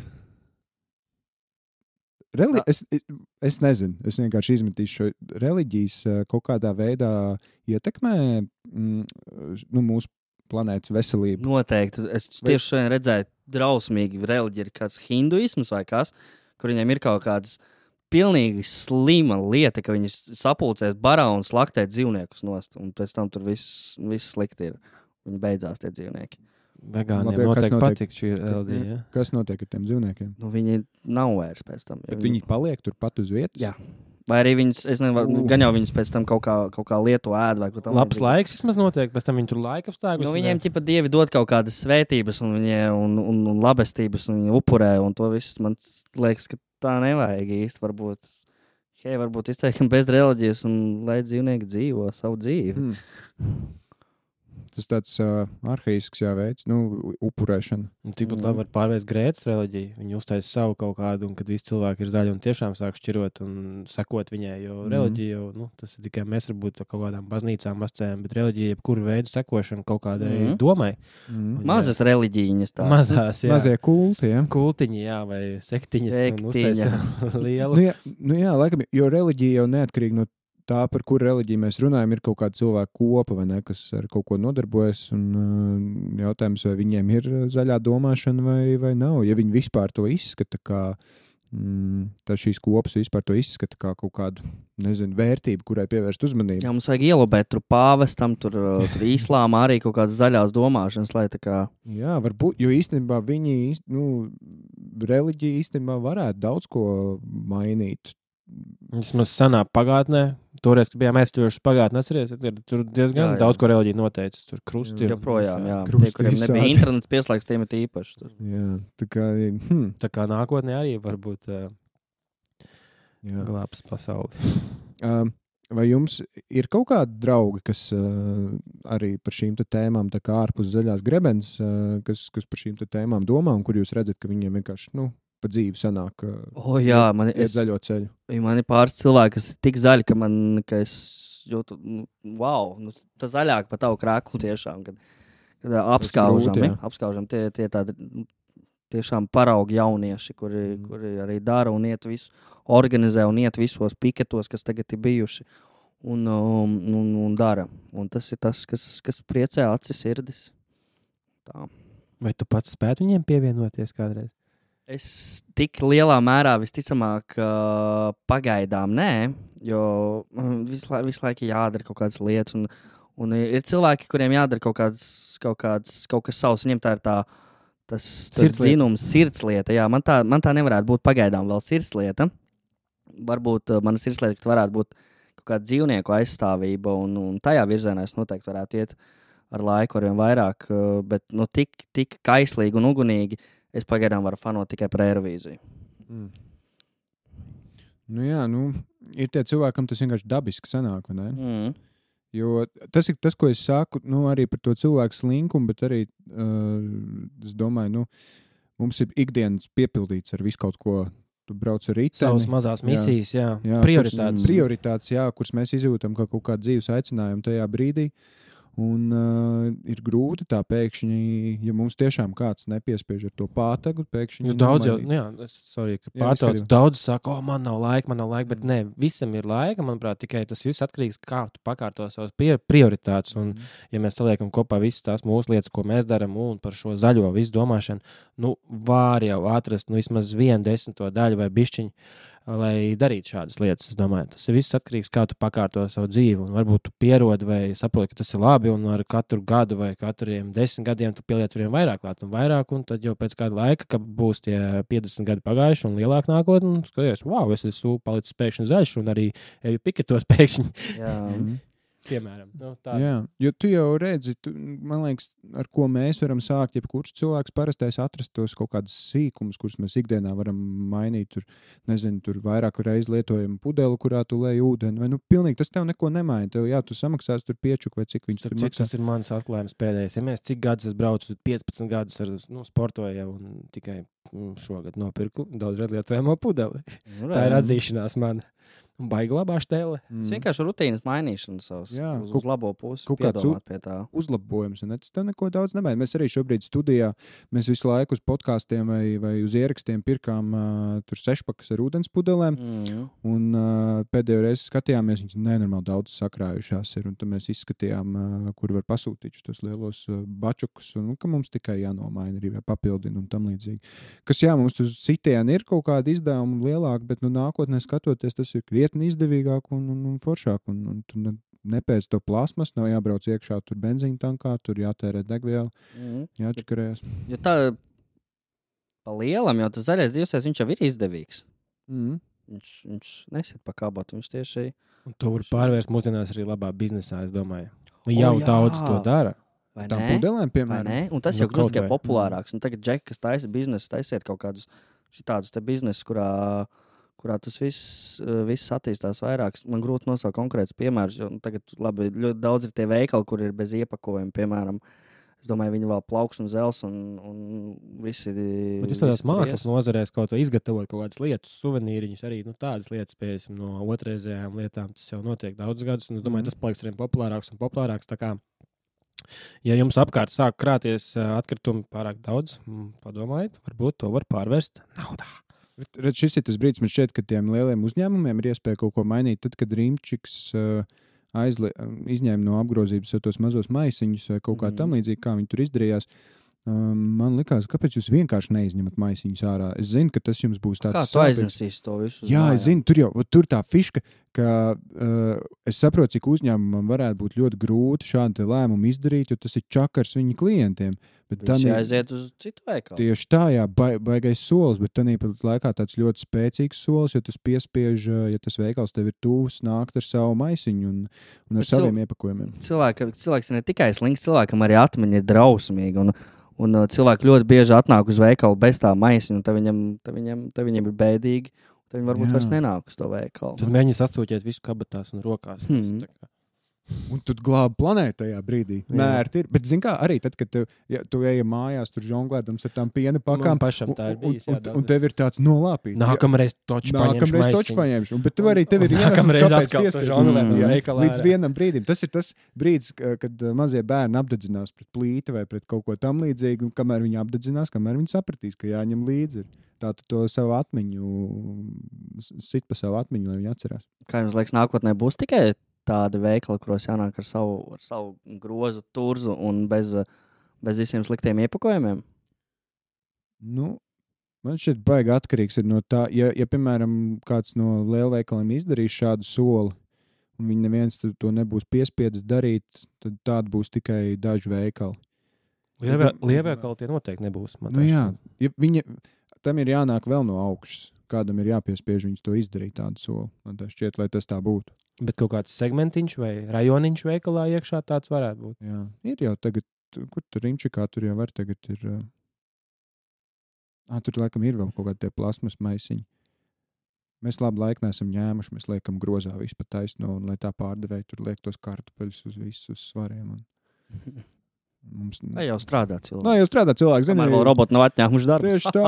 Es nezinu, es vienkārši izmetīšu šo reliģijas kaut kādā veidā ietekmē mūsu planētas veselību. Noteikti. Es tieši šodien redzēju, drausmīgi reliģija ir kāds hinduisms vai kas, kur viņiem ir kaut kādas pilnīgi slima lieta, ka viņi sapulcēs barā un slaktē dzīvniekus nost, un pēc tam tur viss slikti ir. Viņi beidzās tie dzīvnieki. Vegāniem Labi, kas noteikti notiek? patīk šī reliģija. Ja? Kas notiek ar tiem dzīvniekiem? Nu, viņi nav vairs pēc tam. Bet viņi paliek turpat uz vietas? Jā. Vai arī viņus, es nezinu, gan jau viņus pēc tam kaut kā lietu ēd vai ko tam. Labs laiks vismaz notiek, pēc tam viņi tur laika apstākļus. Nu, viņiem ķipa dievi dod kaut kādas svētības un labestības, un viņi upurē, un to viss man liekas, ka tā nevajag īsti. Varbūt izteikam bez reliģijas un lai dzīvnieki dzīvo savu dzīvi. Tas tāds arhaisks veids, upurēšana. Tikpat labi var pārvērst Grētas reliģiju. Viņi uztaisa savu kaut kādu, un kad visi cilvēki ir zaļi un tiešām sāk šķirot un sekot viņai, jo reliģija jau, tas ir tikai mēs varbūt kaut kādām baznīcām asociējam, bet reliģija jebkuru veidu sekošana kaut kādai domai. Mazas reliģijas tās. Mazās, jā. Mazie kulti, jā. Kultiņi, jā, vai sektiņas. Lielu. Jā, laikam, jo reliģija jau neatkarīgi no tā, par kuru reliģiju mēs runājam, ir kaut kāda cilvēka kopa, vai ne, kas ar kaut ko nodarbojas, un jautājums, vai viņiem ir zaļā domāšana vai nav. Ja viņi vispār to izskata kā, tad šīs kopas vispār to izskata kā kaut kādu, vērtību, kurai pievērst uzmanību. Jā, mums vajag ielobēt tur pāvestam, tur islāmā arī kaut kādas zaļās domāšanas, lai tā kā... Jā, varbūt, jo īstenībā viņi, reliģija īstenībā varētu daudz ko mainīt. Vismaz senā pagātnē, toreiz, kad bijām aizķojuši pagātnē, atceries, tur diezgan daudz ko reliģija noteica. Tur krusti ir. Joprojām, jā. Krusti Tie, kuriem visādi. nebija internets pieslēgts, tiem ir īpaši. Tur. Jā, Tā kā nākotnē arī varbūt jā. glābs pasauli. Vai jums ir kaut kādi draugi, kas arī par šīm tēmām, tā kā ārpus zaļās grebenes, kas par šīm tēmām domā, un kur jūs redzat, ka viņiem vienkārši, pa dzīvi sanāk Jā, iet zaļo ceļu? Man ir pāris cilvēki, kas ir tik zaļi, ka es jūtu, wow, tā zaļāk pa tavu krāklu tiešām, kad apskaužam, tie tādi tiešām paraugi jaunieši, kuri arī dara un iet visu, organizē un iet visos piketos, kas tagad ir bijuši un dara. Un tas ir tas, kas priecē acis sirdis. Tā. Vai tu pats spētu viņiem pievienoties kādreiz? Es tik lielā mērā visticamāk pagaidām nē, jo visu laiku jādara kaut kādas lietas, un ir cilvēki, kuriem jādara kaut kas savs, viņiem tā ir tas zinums, sirdslieta. Jā, man tā nevarētu būt pagaidām vēl sirdslieta. Varbūt mana sirdslieta varētu būt kaut kāda dzīvnieku aizstāvība, un tajā virzienā es noteikti varētu iet ar laiku arvien vairāk, bet tik kaislīgi un ugunīgi es pagaidām varu fanot tikai par Eirovīziju. Ir tie cilvēkam tas vienkārši dabiski sanāk, vai ne? Jo tas ir tas, ko es saku, arī par to cilvēku slinkumu, bet arī, es domāju, mums ir ikdienas piepildīts ar visu kaut ko. Tu brauc ar riteni. Savas mazās misijas, jā. Prioritātes. Prioritātes, jā, kuras mēs izjūtam kā kaut kādu dzīves aicinājumu tajā brīdī. Un ir grūti tā pēkšņi, ja mums tiešām kāds nepiespiež ar to pātagu, pēkšņi... Daudz jau, daudz saka, man nav laika, bet nē, visam ir laika, manuprāt, tikai tas viss atkarīgs, kā tu pakārto savas prioritātes. Un, ja mēs saliekam kopā visas tās mūsu lietas, ko mēs daram, un par šo zaļo visu domāšanu, var jau atrast vismaz 1/10 daļu vai bišķiņu, lai darītu šādas lietas. Es domāju, tas ir viss atkarīgs, kā tu pakārto savu dzīvi. Un varbūt tu pierodi vai saproti, ka tas ir labi, un ar katru gadu vai katriem 10 gadiem tu pieliec vien vairāk, un tad jau pēc kāda laika, kad būs tie 50 gadi pagājuši un lielāk nākotnē, un skaties, wow, es esmu palicis pēkšņi zaļš, un arī eju piketos pēkšņi. Jā. Piemēram. Jā, jo tu jau redzi, man liekas, ar ko mēs varam sākt, jebkurš cilvēks parastais atrast tos kaut kādus sīkumus, kurus mēs ikdienā varam mainīt. Tur vairāk reiz lietojam pudeli, kurā tu lej ūdeni. Vai, pilnīgi tas tev neko nemaina. Tev, tu samaksās tur piečuk vai cik viņš tur maksā. Tas ir mans atklājums pēdējais. Ja mēs cik gadus es braucu, 15 gadus sportoju jau un tikai šogad nopirku daudz lietojamo pudeli. Tā ir atzīšanās man. Baigi labā štēle. Tas vienkārši rutīnas mainīšana savas uz labo pusi. Kaut kāds pie tā. Uzlabojums, un tas tev neko daudz nemaina. Mēs arī šobrīd studijā, mēs visu laiku uz podkāstiem vai uz ierakstiem pirkām tur 6-pakas ar ūdens pudelēm, un pēdējo reizi skatījāmies, viņas nenormāli daudz sakrājušās ir, un tad mēs izskatījām, kur var pasūtīt tos lielos bačukus, un ka mums tikai jānomaina arī papildina un tam līdzīgi. Kas mums uz sitienu ir kaut kāda izdevuma lielāka, bet nākotnē skatoties, tas ir krietni izdevīgāk un foršāk. Un tu nepēc to plasmas, nav jābrauc iekšā tur benzīna tankā, tur jātērē degviela, jāčakarējas. Jo tā pa lielam, jo tas zaļais dzīvesveids, viņš jau ir izdevīgs. Viņš nesiet pa kabotu, viņš tieši... Un to var pārvērst mūsdienās arī labā biznesā, es domāju. Jau daudz to dara. Vai Tām ne? pudelēm, piemēram. Vai ne? Un tas jau kļūst tikai populārāks. Un tagad džeki, kas taisa biznesu, taisiet kaut kādus šitādus te biznesus, kurā tas viss attīstās vairāk. Man grūti nosaukt konkrētus piemērus, jo tagad labi, ļoti daudz ir tie veikali, kur ir bez iepakojuma, piemēram. Es domāju, viņi vēl plauks un zels un visi... Bet jūs tādās mākslas nozarēs kaut ko izgatavot, kaut kādas lietas, suvenīriņus, arī tādas lietas, piesim, no otrreizējām lietām, tas jau notiek daudz gadus, un es domāju, tas paliks arī populārāks un populārāks, tā kā, ja jums apkārt sāk krāties atkritumi pārāk daudz, padomājiet, varbūt to var pārvērst naudā. Redz, šis ir tas brīdis, man šķiet, ka tiem lieliem uzņēmumiem ir iespēja kaut ko mainīt, tad, kad Rimčiks izņēma no apgrozības tos mazos maisiņus vai kaut kā tam līdzīgi, kā viņi tur izdarījās. Man likās, kāpēc jūs vienkārši neizņemat maisiņus ārā? Es zinu, ka tas jums būs tāds... Kā tu aiznesīs to visu? Jā, es zinu, tur tā fiška, ka es saprotu, cik uzņēmumam varētu būt ļoti grūti šādu lēmumu izdarīt, jo tas ir čakars viņu klientiem. Bet viņš aiziet uz citu veikalu. Tieši tā, jā, baigais solis, bet tāpat laikā tāds ļoti spēcīgs solis, jo tas piespiež, ja tas veikals tev ir tūs, nākt ar savu maisiņu un ar saviem iepakojumiem. Cilvēks ne tikai slinks, cilvēkam arī atmiņa ir drausmīga, un cilvēki ļoti bieži atnāk uz veikalu bez tā maisiņa, un tad viņiem ir bēdīgi, tad viņi varbūt vairs nenāk uz to veikalu. Tad mēģini sastūķēt visu kabatās un rokās. Un tu glābi planētu tajā brīdī. Nē, ir. Bet, zini kā, arī tad, kad tu ej mājās, tur žonglēdams ar tām piena pakām, pašam tā ir bijis, un tev ir tāds nolāpīts. Nākamreiz toču paņemšu. Bet tev arī tev ir nākamreiz atkal līdz vienam brīdim. Tas ir tas brīdis, kad mazie bērni apdedzinās pret plīti vai pret kaut ko tam līdzīgu, un kamēr viņi apdedzinās, kamēr viņi sapratīs, ka jāņem līdzi. Tā tu to savu atmiņu, sit pa savu atmiņu, lai viņi atcerās. Kā jums liekas, nākotnē būs tikai tādi veikali, kuros jānāk ar savu grozu, turzu un bez visiem sliktiem iepakojumiem? Man šķiet baigi atkarīgs ir no tā, ja piemēram, kāds no lielveikaliem izdarīs šādu soli, un viņi neviens to nebūs piespiedis darīt, tad tāda būs tikai daži veikali. Lielveikali tie noteikti nebūs. Tam ir jānāk vēl no augšas. Kādam ir jāpiespiež viņus to izdarīt tādu soli. Man tā šķiet, lai tas tā būtu. Bet kaut kāds segmentiņš vai rajoniņš veikalā iekšā tāds varētu būt. Jā, ir jau tagad, kur tur Rimčikā tur jau var tagad ir... Tur laikam ir vēl kaut kādi tie plasmas maisiņi. Mēs labu laiku neesam ņēmuši, mēs liekam grozā visu pa taisno, un lai tā pārdevēja tur liek tos kartupeļus uz visus svariem. Mums... Vai jau strādā cilvēki? Vai jau strādā cilvēki, zini? Kamēr vēl roboti nav atņēmuši darbu. Tieši tā.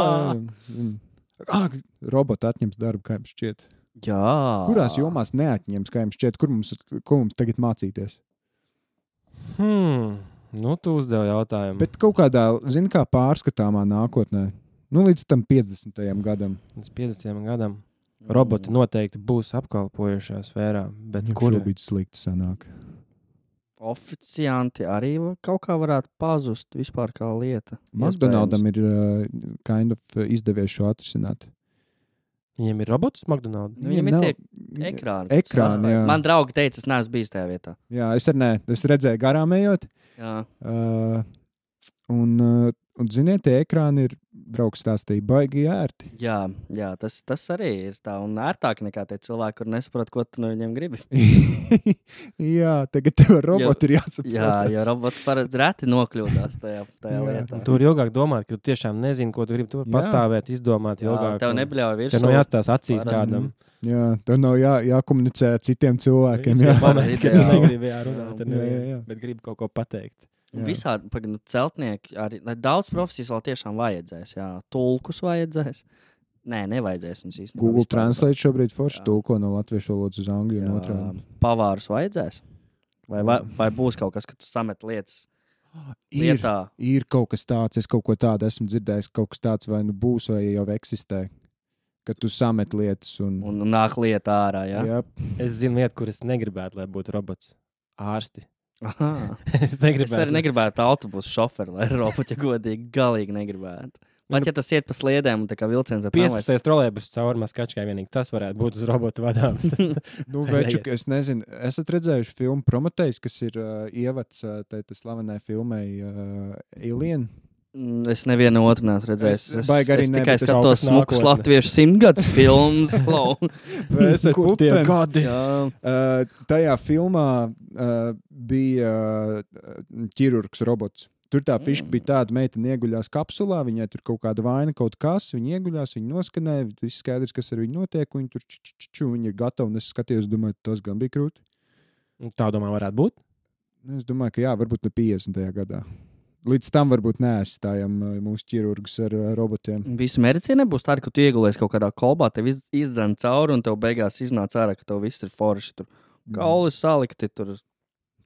Roboti atņems darbu, kā jums šķiet. Jā. Kurās jomās neatņems, kā jums šķiet, ko mums tagad mācīties? Tu uzdevi jautājumu. Bet kaut kādā, zini, kā pārskatāmā nākotnē, līdz tam 50. gadam. Līdz 50. gadam roboti noteikti būs apkalpojušā sfērā, bet kur? Šobrīd slikti sanāk. Oficianti arī kaut kā varētu pazust vispār kā lieta. McDonaldam ir izdevies šo atrisināt. Viņiem ir robots McDonald's? Viņiem ir tie ekrāni. Jā. Man draugi teica, es neesmu bijis tajā vietā. Jā, es arī ne. Es redzēju garām ejot. Jā. Un ziniet, tie ekrāni ir, draugs stāstīja, baigi ērti. Jā, tas arī ir tā un ērtāk nekā tie cilvēki, kur nesaprot, ko tu no viņiem gribi. Jā, tagad tev roboti ir jāsaprot. Jā, jo robots parasti reti nokļūdās tajā lietā. Tu vari ilgāk domāt, ka tu tiešām nezini, ko tu gribi. Tu vari pastāvēt, izdomāt ilgāk. Tev nebļauj virsū. Tev nav jāstās acīs kādam. Jā, tev nav jākomunicē ar citiem cilvēkiem. Jā, negribi runāt, bet gribi kaut ko pateikt. Visādi celtnieki, arī daudz profesijas vēl tiešām vajadzēs. Jā. Tulkus vajadzēs. Nē, nevajadzēs viņus īstenībā. Google vispār. Translate šobrīd forši Jā. tulko no latviešu valodas uz angļu un otrādi. Pavārus vajadzēs? Vai būs kaut kas, ka tu samet lietas lietā? Ir kaut kas tāds, es kaut ko tādu esmu dzirdējis, kaut kas tāds vai nu būs, vai jau eksistē. Kad tu samet lietas un Un nāk lieta ārā, jā? jā, Es zinu lietu, kur es negribētu, lai būtu robots. Ārsti. Aha. Es Es negribētu. arī negribētu autobusu šoferi, lai roboti godīgi, galīgi negribētu. Pat ja tas iet pa sliedēm un tā kā vilciens, tad 15 trolēbus cauri maskačkai vienīgi. Tas varētu būt uz robotu vadāms. nu, veču, es nezinu, esat redzējuši filmu Prometejs, kas ir ievads tai slavenai filmai Alien? Es nevienu otru neesmu redzējis. Es baigi arī es ne, tikai bet es skatos kaut kas smukus nākotne. latviešu simtgadus filmas. Klau. Vai esat Kur tie putens? gadi? Jā. Tajā filmā bija ķirurgs robots. Tur tā fiška bija tāda, meitene ieguļās kapsulā, viņai tur kaut kāda vaina, kaut kas, viņa ieguļās, viņa noskanēja, viss skaidrs, kas ar viņu notiek, un viņa tur viņa ir gatava, un es skatījos, domāju, tas gan bija krūti. Tā domā varētu būt. Es domāju, ka jā, varbūt ne 50. gadā. Līdz tam varbūt neaizstājam mūsu ķirurgus ar robotiem. Visa medicīna būs tāda, ka tu iegulies kaut kādā kolbā, tev izdzēn cauri, un tev beigās iznāc ārā, ka tev viss ir forši. Tur kauli salikti, tur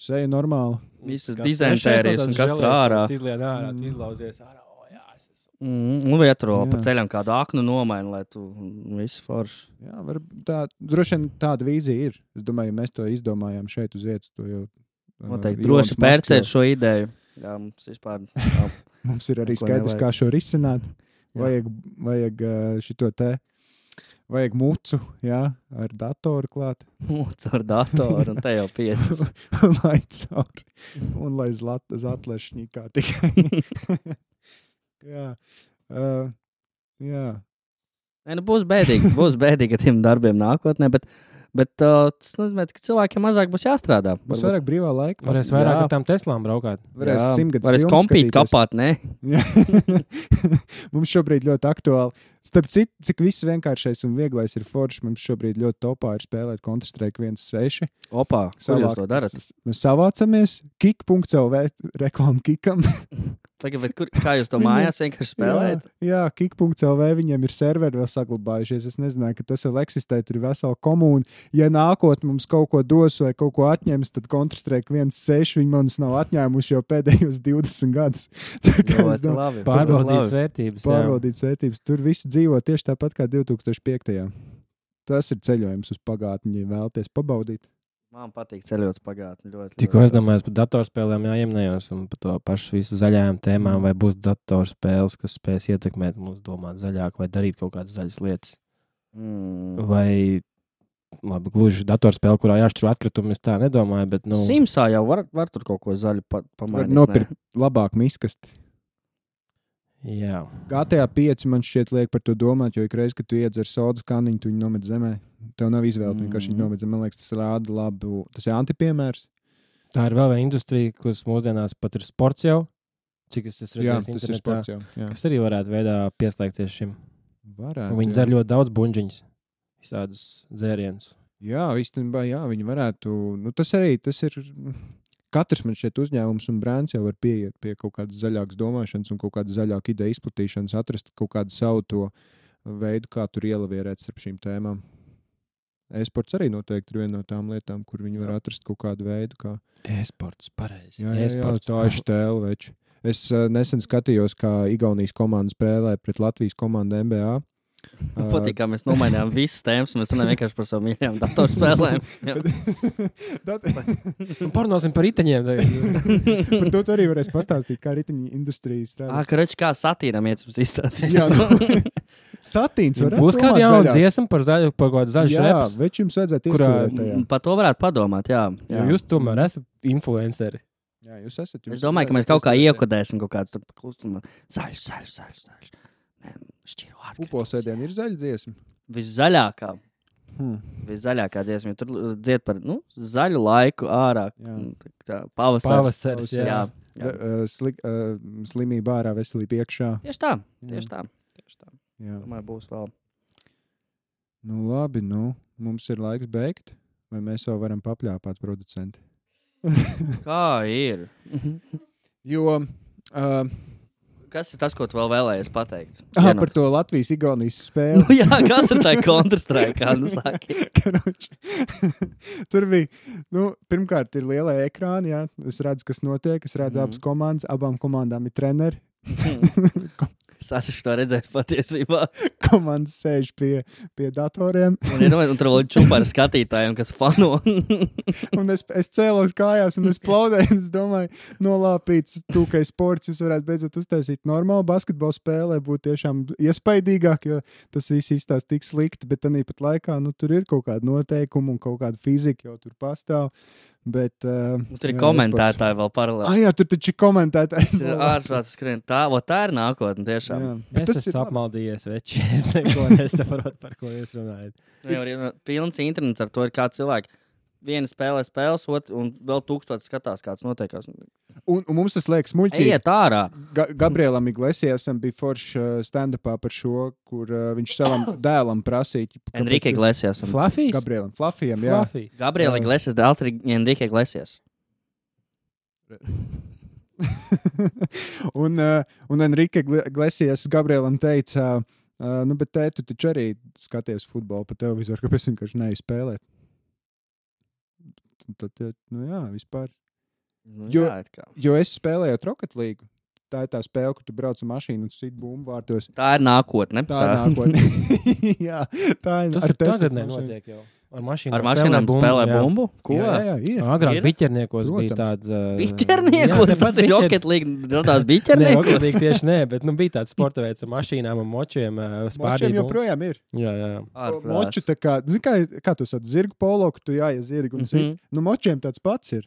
Seja normāli. visas Kas dizentērijas, un kas tur ārā. Izlien ārā, tu izlauzies ārā. O, jā, es esmu. Un vietro Jā. pa ceļam kādu aknu nomaini, lai tu viss forši. Jā, droši vien tāda vīzija ir. Es domāju, ja mēs to izdomājām šeit uz vietas, to jau Noteikti Ilons droši Masks pērcēt jau- šo ideju. Jā, mums vispār nav. Mums ir arī Neko skaidrs, nevajag. kā šo risināt. Jā. Vajag šito te. Vajag mucu, jā, ar datoru klāt. Caur datoru, un te jau 5. Lai cauri. Un lai zatlešņikā tikai. jā. Jā. Nē, nu būs bēdīgi ar tiem darbiem nākotnē, bet tas nozīmē, ka cilvēkiem mazāk būs jāstrādā. Būs vairāk brīvā laika. Varēs vairāk Jā. ar tām Teslām braukāt. Varēs Jā, 100 gadus varēs filmas kompīt skatīties. kapāt, ne? Jā. Mums šobrīd ļoti aktuāli. Starp citu, cik viss vienkāršais un vieglais ir forši, mums šobrīd ļoti topā ir spēlēt Counter-Strike 1.6. Opā, kur jūs to darat? Mēs savācamies, kik.lv reklāmu kikam. Tagad, kā jūs to mājās vienkārši spēlējat? Jā, kik.lv viņiem ir serveri vēl saglabājušies. Es nezināju, ka tas vēl eksistē, tur ir vesela komūna. Ja nākotnē mums kaut ko dos vai kaut ko atņems, tad Counter-Strike 1.6 viņi mums nav atņēmuši jau pēdējos 20 gadus. Tā kā es Ļoti domāju, labi. Pārbaudītas vērtības. jā. pārbaudīts vērtības. Tur viss dzīvo tieši tāpat kā 2005. Tas ir ceļojums uz pagātni, ja vēlaties pabaudīt. Man patīk ceļot pagātni ļoti. Tikko es domāju, par datorspēlēm jāiemnējos un par to pašu visu zaļajām tēmām, vai būs datorspēles, kas spēs ietekmēt mūs domāt zaļāk vai darīt kaut kādas zaļas lietas. Vai, labi, gluži datorspēle, kurā jāšķiro atkritumi, es tā nedomāju, bet, nu, Simsā jau var tur kaut ko zaļu Var pamainīt. nopirkt labāk miskasti. jā. GTA 5 man šķiet liek par to domāt, jo ikreiz, kad tu iedzer sodas kaniņu, tu viņu nomet zemē. Tev nav izvēle, tu vienkārši viņu nomet zemē. Man liekas, tas rāda labu. Tas ir antipiemērs. Tā ir vēl viena industrija, kas mūsdienās pat ir sports jau, cik es esmu Jā, redzējis tas ir internetā, sports jau. Jā. kas arī varētu veidā pieslēgties šim. Varētu, Viņi jā. dzer ļoti daudz buņģiņas, visādus dzērienus. Jā, īstenībā, jā, viņi varētu. Nu, tas arī tas ir. Katrs man šeit uzņēmums un brands jau var pieiet pie kaut kādas zaļākas domāšanas un kaut kādas zaļākas ideju izplatīšanas, atrast kaut kādu savu to veidu, kā tur ielavierēt starp šīm tēmām. E-sports arī noteikti ir viena no tām lietām, kur viņi var atrast kaut kādu veidu, kā. E-sports, pareizi. Jā, E-sports. tā ir štēle, veči. Es nesen skatījos, kā Igaunijas komanda spēlē pret Latvijas komandu NBA. Man patīk, kā mēs nomainījām visas tēmas, un mēs runājam vienkārši par savām mīļajām datorspēlēm. Jā. Parunāsim par riteņiem. Par to tu arī varēs pastāstīt, kā riteņu industrija strādā. Karači, kā satīram iet uz izstāstīt. Jā, nu, satīns var Būs kāda jauna dziesma par zaļu, par kaut kādu zaļu Jā, reps. veči jums vajadzētu kurā- iestudēt tajā. Par to varētu padomāt, jā. Jo jūs tomēr esat influenceri. Jā, jūs esat. Es domāju, ka mēs kaut kā iekodēsim kaut kādu klustumu. Zaļš. Šķiro atkritumus. Upolsēdien ir zaļa dziesma. Viszaļākā. Viszaļākā dziesma. Tur dzied par zaļu laiku ārā. Jā. Tā, pavasaris. Pavasaris, Jā. Jā. Slimība ārā, veselība iekšā. Tieši tā. Tieši tā. Jā. Domāju, būs vēl. Nu, labi, mums ir laiks beigt, vai mēs vēl varam papļāpāt producenti? Kā ir? Jo Kas ir tas, ko tu vēl vēlējies pateikt? Par to Latvijas-Igaunijas spēli. Nu, jā, kas ir tā Counter-Strike, nu saki? Tur bija, pirmkārt ir lielie ekrāni, jā. Es redzu, kas notiek, es redzu abas komandas, abām komandām ir treneri. Es esmu to redzējis patiesībā. Komandas sēž pie datoriem. Un tur vēl ir čupa ar skatītājiem, kas fano. Un es cēlos kājās un es plaudēju, un es domāju, nolāpīts tūkai sports, jūs varētu beidzot uztaisīt normālu basketbolu spēlē, būtu tiešām iespaidīgāk, jo tas viss izstās tik slikti, bet tanī pat laikā, tur ir kaut kāda noteikuma un kaut kāda fizika jau tur pastāv. Bet, tur ir komentētāji vēl paralēli. Jā, tur taču ir komentētāji. Tas ir ārprāts skrien. Tā ir nākotne tiešām. Jā, es esmu apmaldījies, veči. Es neko nesaprotu, par ko jūs runājat. Pilns internets ar to ir kā cilvēki. Viena spēlē spēles, un vēl 1000 skatās, kāds notiekās. Un mums tas liekas muļķīgi. Ejiet ārā. Gabrielam Iglesiasam bija foršs stand-upā par šo, kur viņš savam dēlam prasīja. Enrique Iglesiasam. Flafijs? Gabrielam Flafijam, jā. Gabriela Iglesias dēls ir Enrique Iglesias. un Enrique Iglesias Gabrielam teica, bet tēt, tu taču arī skaties futbolu pa televizoru, kāpēc vienkārši neej spēlēt. Tad, jā, vispār. Jo es spēlēju Rocket League. Tā ir tā spēle, kur tu brauc ar mašīnu un sit bumbu vārtos. Tā ir nākotne. Tā ir nākotne. Jā, tā ir. Tas ir tagad nenotiek jau. Ar mašīnām spēlē bumbu? Ko? Jā, ir. Agrāk biķerniekos bija tāds... Biķerniekos? Tas ir Rocket League, radās biķerniekos? Rocket League tieši nē, bet bija tāds sporta veids ar mašīnām un močiem. Močiem joprojām ir. Jā. Moču tā kā, kā tu sat zirgu polo, ka tu jāies zirgu un sit. Močiem tāds pats ir.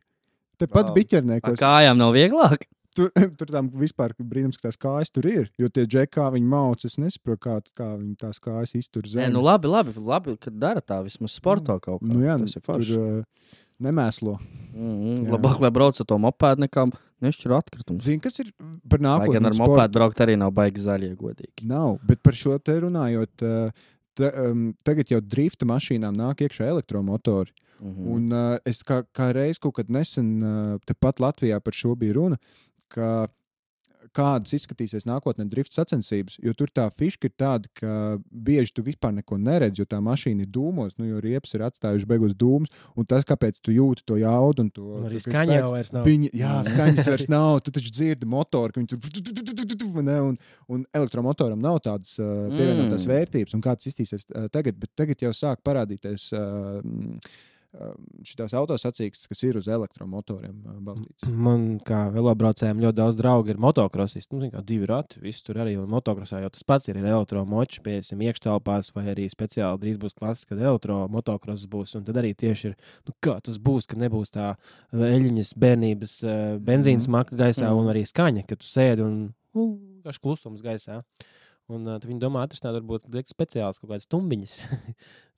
Tepat biķerniekos. Kājām nav vieglāk? Tur tam vispār brīnums, ka tās kājas tur ir, jo tie džekā viņi mauc, es nesaprotu, kā viņi tās kājas iztur zemi. Labi, kad dara tā vismaz sporto kaut kā. Jā, tas ir forši. Tur nemēslo. Labāk, lai brauc ar to mopēdu, nekā nešķir atkritumu. Zini, kas ir par nākotnes sportu? Lai gan ar mopēdu braukt arī nav baigi zaļie, godīgi. Nav, bet par šo te runājot, tagad jau drifta mašīnām nāk iekšā elektromotori. Un es kā reiz kaut kad nesen tepat Latvijā par šo bija runa, ka kādas izskatīsies nākotnē drifta sacensības, jo tur tā fiška ir tāda, ka bieži tu vispār neko neredz, jo tā mašīna ir dūmos, jo riepas ir atstājuši beigos dūmus, un tas, kāpēc tu jūti to jaudu un to... Arī skaņa jau vairs nav. Jā, skaņas vairs nav, tu taču dzirdi motoru, ka viņi tur... Un elektromotoram nav tādas pievienotās vērtības, un kāds iztīsies tagad, bet tagad jau sāk parādīties... šitās autosacīkstes, kas ir uz elektromotoriem balstīts. Man kā velobraucējiem ļoti daudz draugi ir motokrosisti. Kā 2 rati, viss tur arī. Un motokrosā jau tas pats ir elektromoči, piesim iekštelpās vai arī speciāli drīz būs klases, kad elektromotokross būs. Un tad arī tieši ir, kā tas būs, ka nebūs tā eļiņas bērnības benzīnas maka gaisā un arī skaņa, ka tu sēdi un kāds klusums gaisā. Un tad viņi domā atrisināt varbūt speciāls kaut kādas tumbiņas,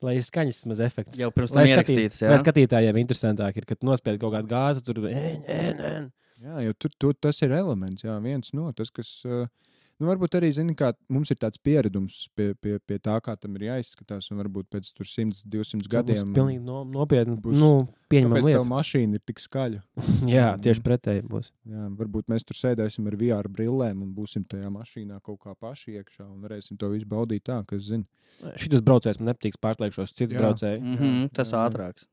lai ir skaņas maz efekts. Jau pirms tam ierakstīts, jā. Lai skatītājiem interesantāk ir, kad nospied kaut kādu gāzi, tur... Jā, jo tur tas ir elements, jā, viens no tas, kas... varbūt arī, zini, kā mums ir tāds pieredums pie tā, kā tam ir jāizskatās, un varbūt pēc 100-200 gadiem... Tas pilnīgi nopietni, pieņemam lietu. Kāpēc tev mašīna ir tik skaļa? Jā, tieši pretēji būs. Jā, varbūt mēs tur sēdēsim ar VR brillēm un būsim tajā mašīnā kaut kā paši iekšā un varēsim to visu baudīt tā, kas zina. Šitas braucējs man nepatīks pārslēgšos citu braucēju. Tas ātrāks.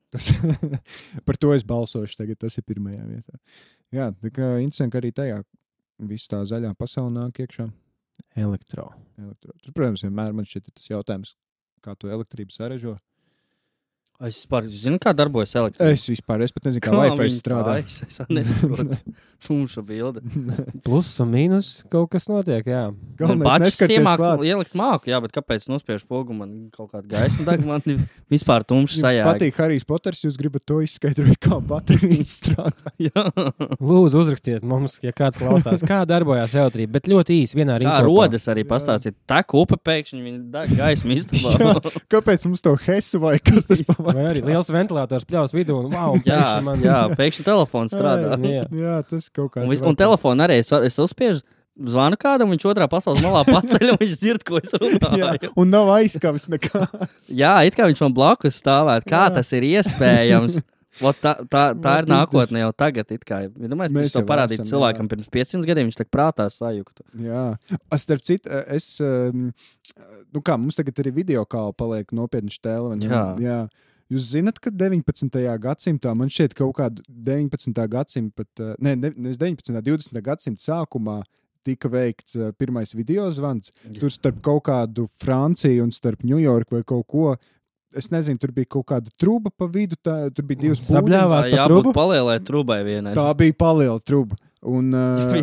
Par to es balsošu tagad, tas ir pirmajā vietā. Jā, tā kā interesanti, ka arī tajā viss tā zaļā pasaule nāk iekšā. Elektro. Tur, protams, vienmēr man šķiet tas jautājums, kā to elektrību sarežo. Es vispār zinu, kā darbojas elektrība. Es pat nezinu, kā Wi-Fi strādā. Es nesaprotu. Tumša bilde. Plus un mīnus kaut kas notiek, jā. Galvenais neskaties klāt. Ielikt māku, jā, bet kāpēc nospiež pogu man kaut kādu gaismu, tagad man vispār tumša sajāga. Jums patīk Harijs Poters, jūs gribat to izskaidrot, kā baterijas strādā. Jā. Lūdzu, uzrakstiet mums, ja kāds klausās, kā darbojās elektrība, bet ļoti īsi vienā rīkopā. Kā rodas arī pastāstīt, tek upe pēkšņi, viņi deg gaismu istabā. Kāpēc mums to hesu vai kas tas pavār? Vai arī liels ventilators pļaus vidū un wow, pēkšņi telefons strādā. Jā, tas kaut kāds. Un telefonu arī es uzspiežu, zvanu kādam, viņš otrā pasaules malā paceļ un viņš dzird, ko es runāju. Jā, un nav aizskavis nekā. Jā, it kā viņš man blakus stāvēt. Kā tas ir iespējams? Tā ir nākotne jau tagad. Domāju, Mēs tas jau jau parādīt esam, cilvēkam pirms 500 gadiem, viņš tā prātā sajuktu. Jā, starp citu, mums tagad arī video kāla paliek nopietni štēle. Jā. Jūs zināt, ka 19. gadsimtā, man šķiet kaut kādu 19. gadsimta, nevis 19. 20. gadsimta sākumā tika veikts pirmais video zvans. Tur starp kaut kādu Franciju un starp Ņujorku vai kaut ko. Es nezinu, tur bija kaut kāda truba pa vidu, tur bija 2 Sabļāvās pa trubu? Palielai trubai vienai. Tā bija paliela truba. Un,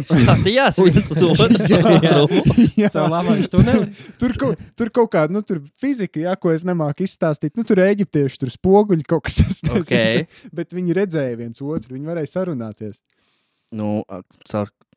skatījās viens uz otru. Tur kaut kāda, tur fizika, ko es nemāku izstāstīt. Tur eģiptieši, tur spoguļi kaut kas. Okay. Bet viņi redzēja viens otru, viņi varēja sarunāties.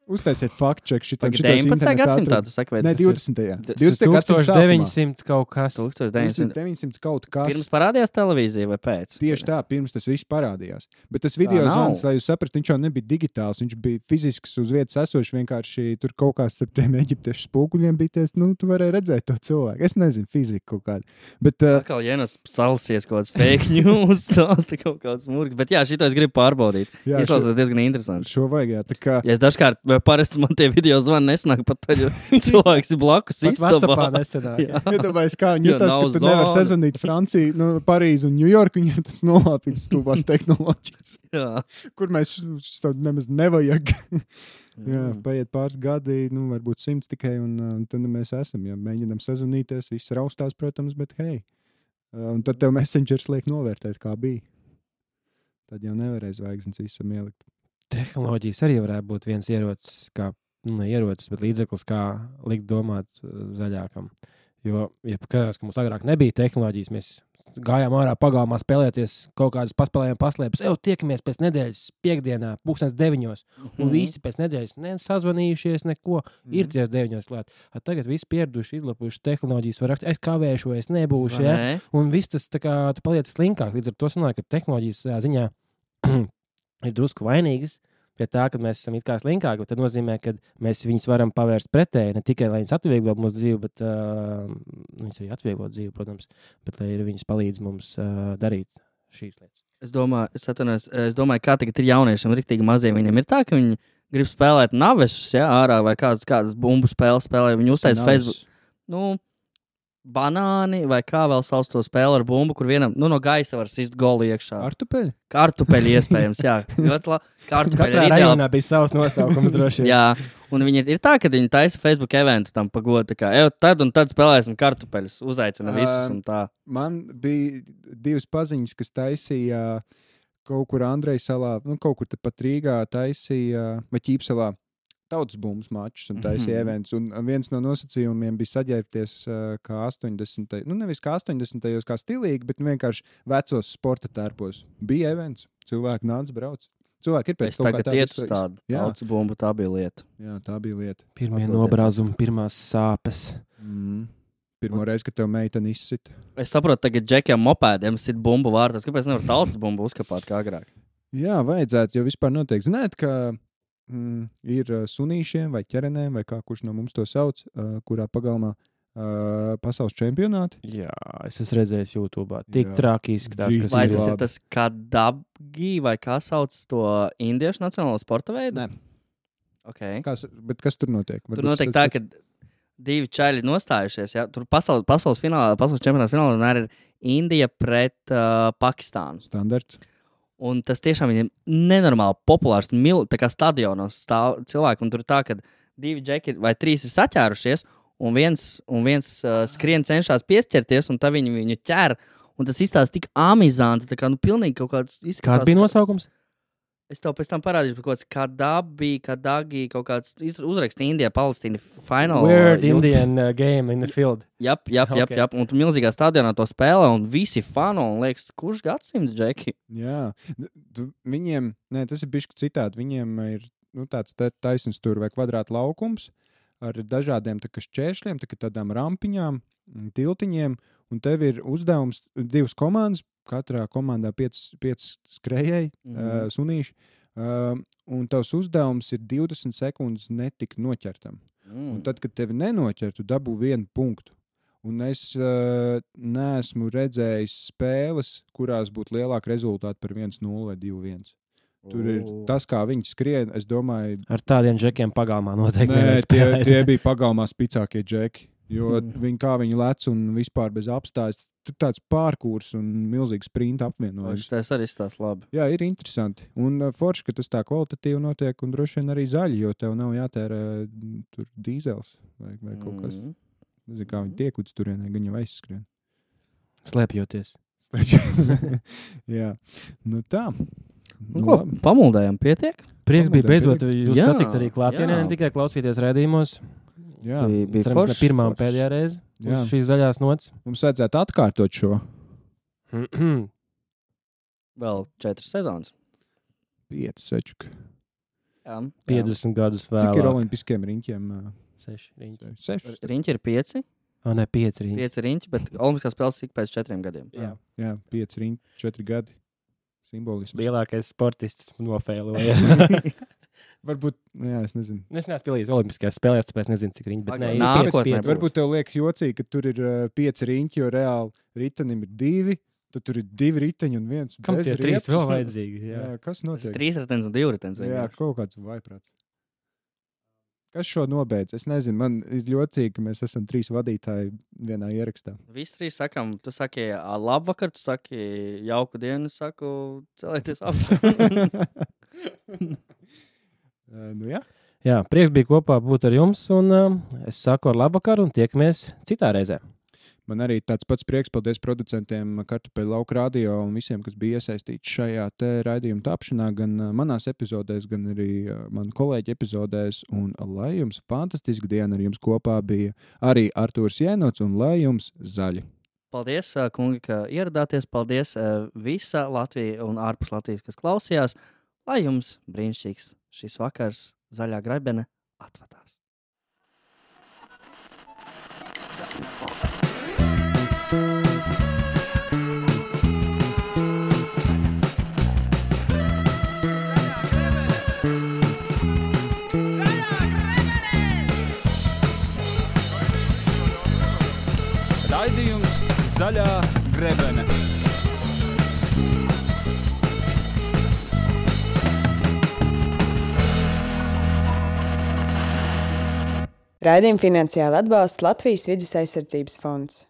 Uztaisiet faktu-čeku šitam. 19. gadsimtā, tu saki, vai? Ne, 20. 1900 kaut kas. 1900 kaut kas. Pirms parādījās televīzija vai pēc? Tieši tā, pirms tas viss parādījās. Bet tas video zvans, lai jūs saprat, viņš jau nebija digitāls, viņš bija fizisks uz vietas esošs, vienkārši tur kaut kāds starp tiem eģiptiešu spoguļiem bija, tu varēji redzēt to cilvēku. Es nezinu, fizika kaut kāda. Bet atkal Jenas salsies kaut kāds fake news, stāsta kaut kāds murgs. Bet jā, šito es gribu pārbaudīt. Izklausās diezgan interesanti. Šo vajag, jā. Tā kā... Ja es dažkārt parasti man tie video zvani nesanāk pat tad, jo cilvēks ir blakus istabā. WhatsAppā nesanāk. Iedomājies, kā viņi jutās, ka tu nevar sazvanīt Franciju, Parīzu un Ņujorku, viņiem tas nolāpīts stūbās tehnoloģijas. Kur mēs to nemaz nevajag. Jā, paiet pāris gadi, varbūt 100 tikai, un tad mēs esam. Ja mēģinām sazvanīties, viss raustās, protams, bet hei. Un tad tev Messengers liek novērtēt, kā bija. Tad jau nevarēs zvaigznes visam ielikt. Tehnoloģijas arī varētu būt viens ierocis, ne ierocis, bet līdzeklis, kā likt domāt zaļākam. Jo, ja skatās, ka mums agrāk nebija tehnoloģijas, mēs gājām ārā pagalmā spēlēties, kaut kādas paspēlējām paslēpes, tiekamies pēc nedēļas piekdienā, 9:00, un visi pēc nedēļas nesazvanījušies, neko, ir 9:00 klāt. Tagad visi pieraduši, izlapuši tehnoloģijas, var rakstīt, es kavēšu, es nebūšu, un viss tas tā kā tu paliec slinkāk, līdz ar to sanāk, ka tehnoloģijas ziņā ir drusku vainīgas pie tā, ka mēs esam it kā slinkāki, bet tad nozīmē, ka mēs viņus varam pavērst pretēji, ne tikai, lai viņas atvieglo mūsu dzīvi, bet viņas arī atvieglo dzīvi, protams, bet lai viņas palīdz mums darīt šīs lietas. Es domāju, kā tagad ir jauniešiem riktīgi maziem, viņiem ir tā, ka viņi grib spēlēt navesus, ārā vai kādas bumbu spēles spēlē, viņi uztais Facebook, banāni vai kā vēl sauc to spēli ar bumbu, kur vienam no gaisa var sist golu iekšā. Kartupeļi iespējams, jā. Katrā rajonā bija savs nosaukums droši. Jā, un viņi ir tā, ka viņi taisa Facebook eventu tam pagodu, kā, tad un tad spēlēsim kartupeļus, uzaicina visus un tā. Man bija 2 paziņas, kas taisīja kaut kur Andreja salā, kaut kur tepat Rīgā taisīja, vai Ķīpselā, tautas bumbas mačus un taisīja events. Un viens no nosacījumiem bija saģērbties kā 80. Nevis kā 80. kā stilīgi, bet vienkārši vecos sporta tērpos. Bija events, cilvēki nāca brauc. Cilvēki ir pēc kaut kā tāda. Es tagad iet uz tādu tautas bumbu, tā bija lieta. Jā, tā bija lieta. Pirmie nobrāzumi, pirmās sāpes. Pirmo reizi, kad tev meiteni izsita. Es saprotu, tagad džekiem mopēdiem sit bumbu vārtās. Kāpēc nevar tautas bumbu uzkapāt kā agrāk? Jā, vajadzētu, jo vispār notiek. Zināt, ka ir sunīšiem vai ķerenēm, vai kā kurš no mums to sauc, kurā pagalmā pasaules čempionāti. Jā, es esmu redzējis YouTube. Tik traki izskatās, kas vai tas ir tas kadabgi, vai kā sauc to indiešu nacionālo sporta veidu? Nē. Okay. Bet kas tur notiek? Tur notiek tā, ka 2 čaļi nostājušies. Ja? Tur pasaules čempionāta finālā vienmēr ir Indija pret Pakistānu. Standarts. Un tas tiešām ir nenormāli populārs. Tā kā stadionos stāv cilvēki, un tur ir tā, ka 2 džeki vai 3 ir saķērušies, un viens skrien cenšas piesķerties, un tad viņu ķer. Un tas izstāsta tik amizanti, tā kā pilnīgi kaut kāds izskatās. Kāds bija nosaukums? Es tev pēc tam parādīšu, kaut kāds kadagi, kaut kāds uzraksts Indija, Palestīna, final. Weird Indian game in the field. Jap. Un tu milzīgā stadionā to spēlē, un visi fano, un liekas, kurš gadsimts, džeki? Jā, viņiem, tas ir bišķi citādi, viņiem ir tāds taisns tur vai kvadrāta laukums ar dažādiem šķēršļiem, tādām rampiņām, tiltiņiem, un tev ir uzdevums 2 komandas, katrā komandā 5 skrējēji, sunīši, un tavs uzdevums ir 20 sekundes netikt noķertam. Un tad, kad tevi nenoķer, tu dabū 1 punktu. Un es neesmu redzējis spēles, kurās būtu lielāka rezultāta par 1-0 vai 2-1. Tur ir tas, kā viņi skrien, es domāju... Ar tādiem džekiem pagalmā noteikti. Nē, tie bija pagalmā spicākie džeki. Jo viņi lec un vispār bez apstājas. Tur tāds pārkūrs un milzīgs sprinta apvienojums. Tas arī stāsts labi. Jā, ir interesanti. Un forši, ka tas tā kvalitatīvi notiek un droši vien arī zaļi, jo tev nav jātērē tur dīzels vai kaut kas. Nezinu, kā viņi tiek līdz turienai, gan jau aizskrien. Slēpjoties. Jā, nu tā. Ko, pamuldējām pietiek? Prieks bija beidzot jūs Jā, satikt arī klātienē, jā. ne tikai klausīties redzījumos. Jā, Bija Cerams, ne forši, pirmā un forši. pēdējā reize Jā. uz šīs zaļās nots. mums vajadzētu atkārtot šo Vēl 4 sezonas. 5 sečuku. Jā. 50 gadus Cik ir vēlāk. olimpiskiem riņķiem? 6 riņķi. 6. Riņķi ir 5. O, ne, 5 riņķi. 5 riņķi, bet olimpiskās spēles tik pēc 4 gadiem. Jā. 5 riņķi, 4 gadi. Simbolisms. Lielākais sportists nofēloja. Varbūt, jā, es nezinu. Es neesmu pielīdz olimpiskajās spēlēs, tāpēc nezinu, cik riņķi. Bet nē, ir Nākotnē 5, 5. būs. Varbūt tev liekas jocīgi, ka tur ir 5 riņķi, jo reāli ritenim ir 2. Tad tur ir 2 riteņi un 1 Kam bez tie 3 riepas. vēl vajadzīgi? Jā. Jā, kas Tas notiek? 3 ritenis un 2 ritenis. Jā, kaut kāds vaiprāts. Kas šo nobeidz? Es nezinu, man ir jocīgi, ka mēs esam 3 vadītāji vienā ierakstā. Visi 3 sakām, tu saki labvakar, tu saki jauku dienu, es saku celieties augšā. Nu jā. Jā, prieks bija kopā būt ar jums, un es saku ar labvakaru un tiekamies citā reizē. Man arī tāds pats prieks, paldies producentiem Kartupeļu lauka radio un visiem, kas bija iesaistīti šajā te raidījuma tapšanā, gan manās epizodēs, gan arī manu kolēģi epizodēs. Un lai jums fantastiska diena, ar jums kopā bija arī Artūrs Jēnots un lai jums zaļi. Paldies, kungi, ka ieradāties. Paldies visa Latvija un ārpus Latvijas, kas klausījās. Lai jums brīnišķīgs šis vakars, zaļā grebene atvadās. Raidījums Zaļā grebene. Raidījumu finansiāli atbalsta Latvijas Vides aizsardzības fonds.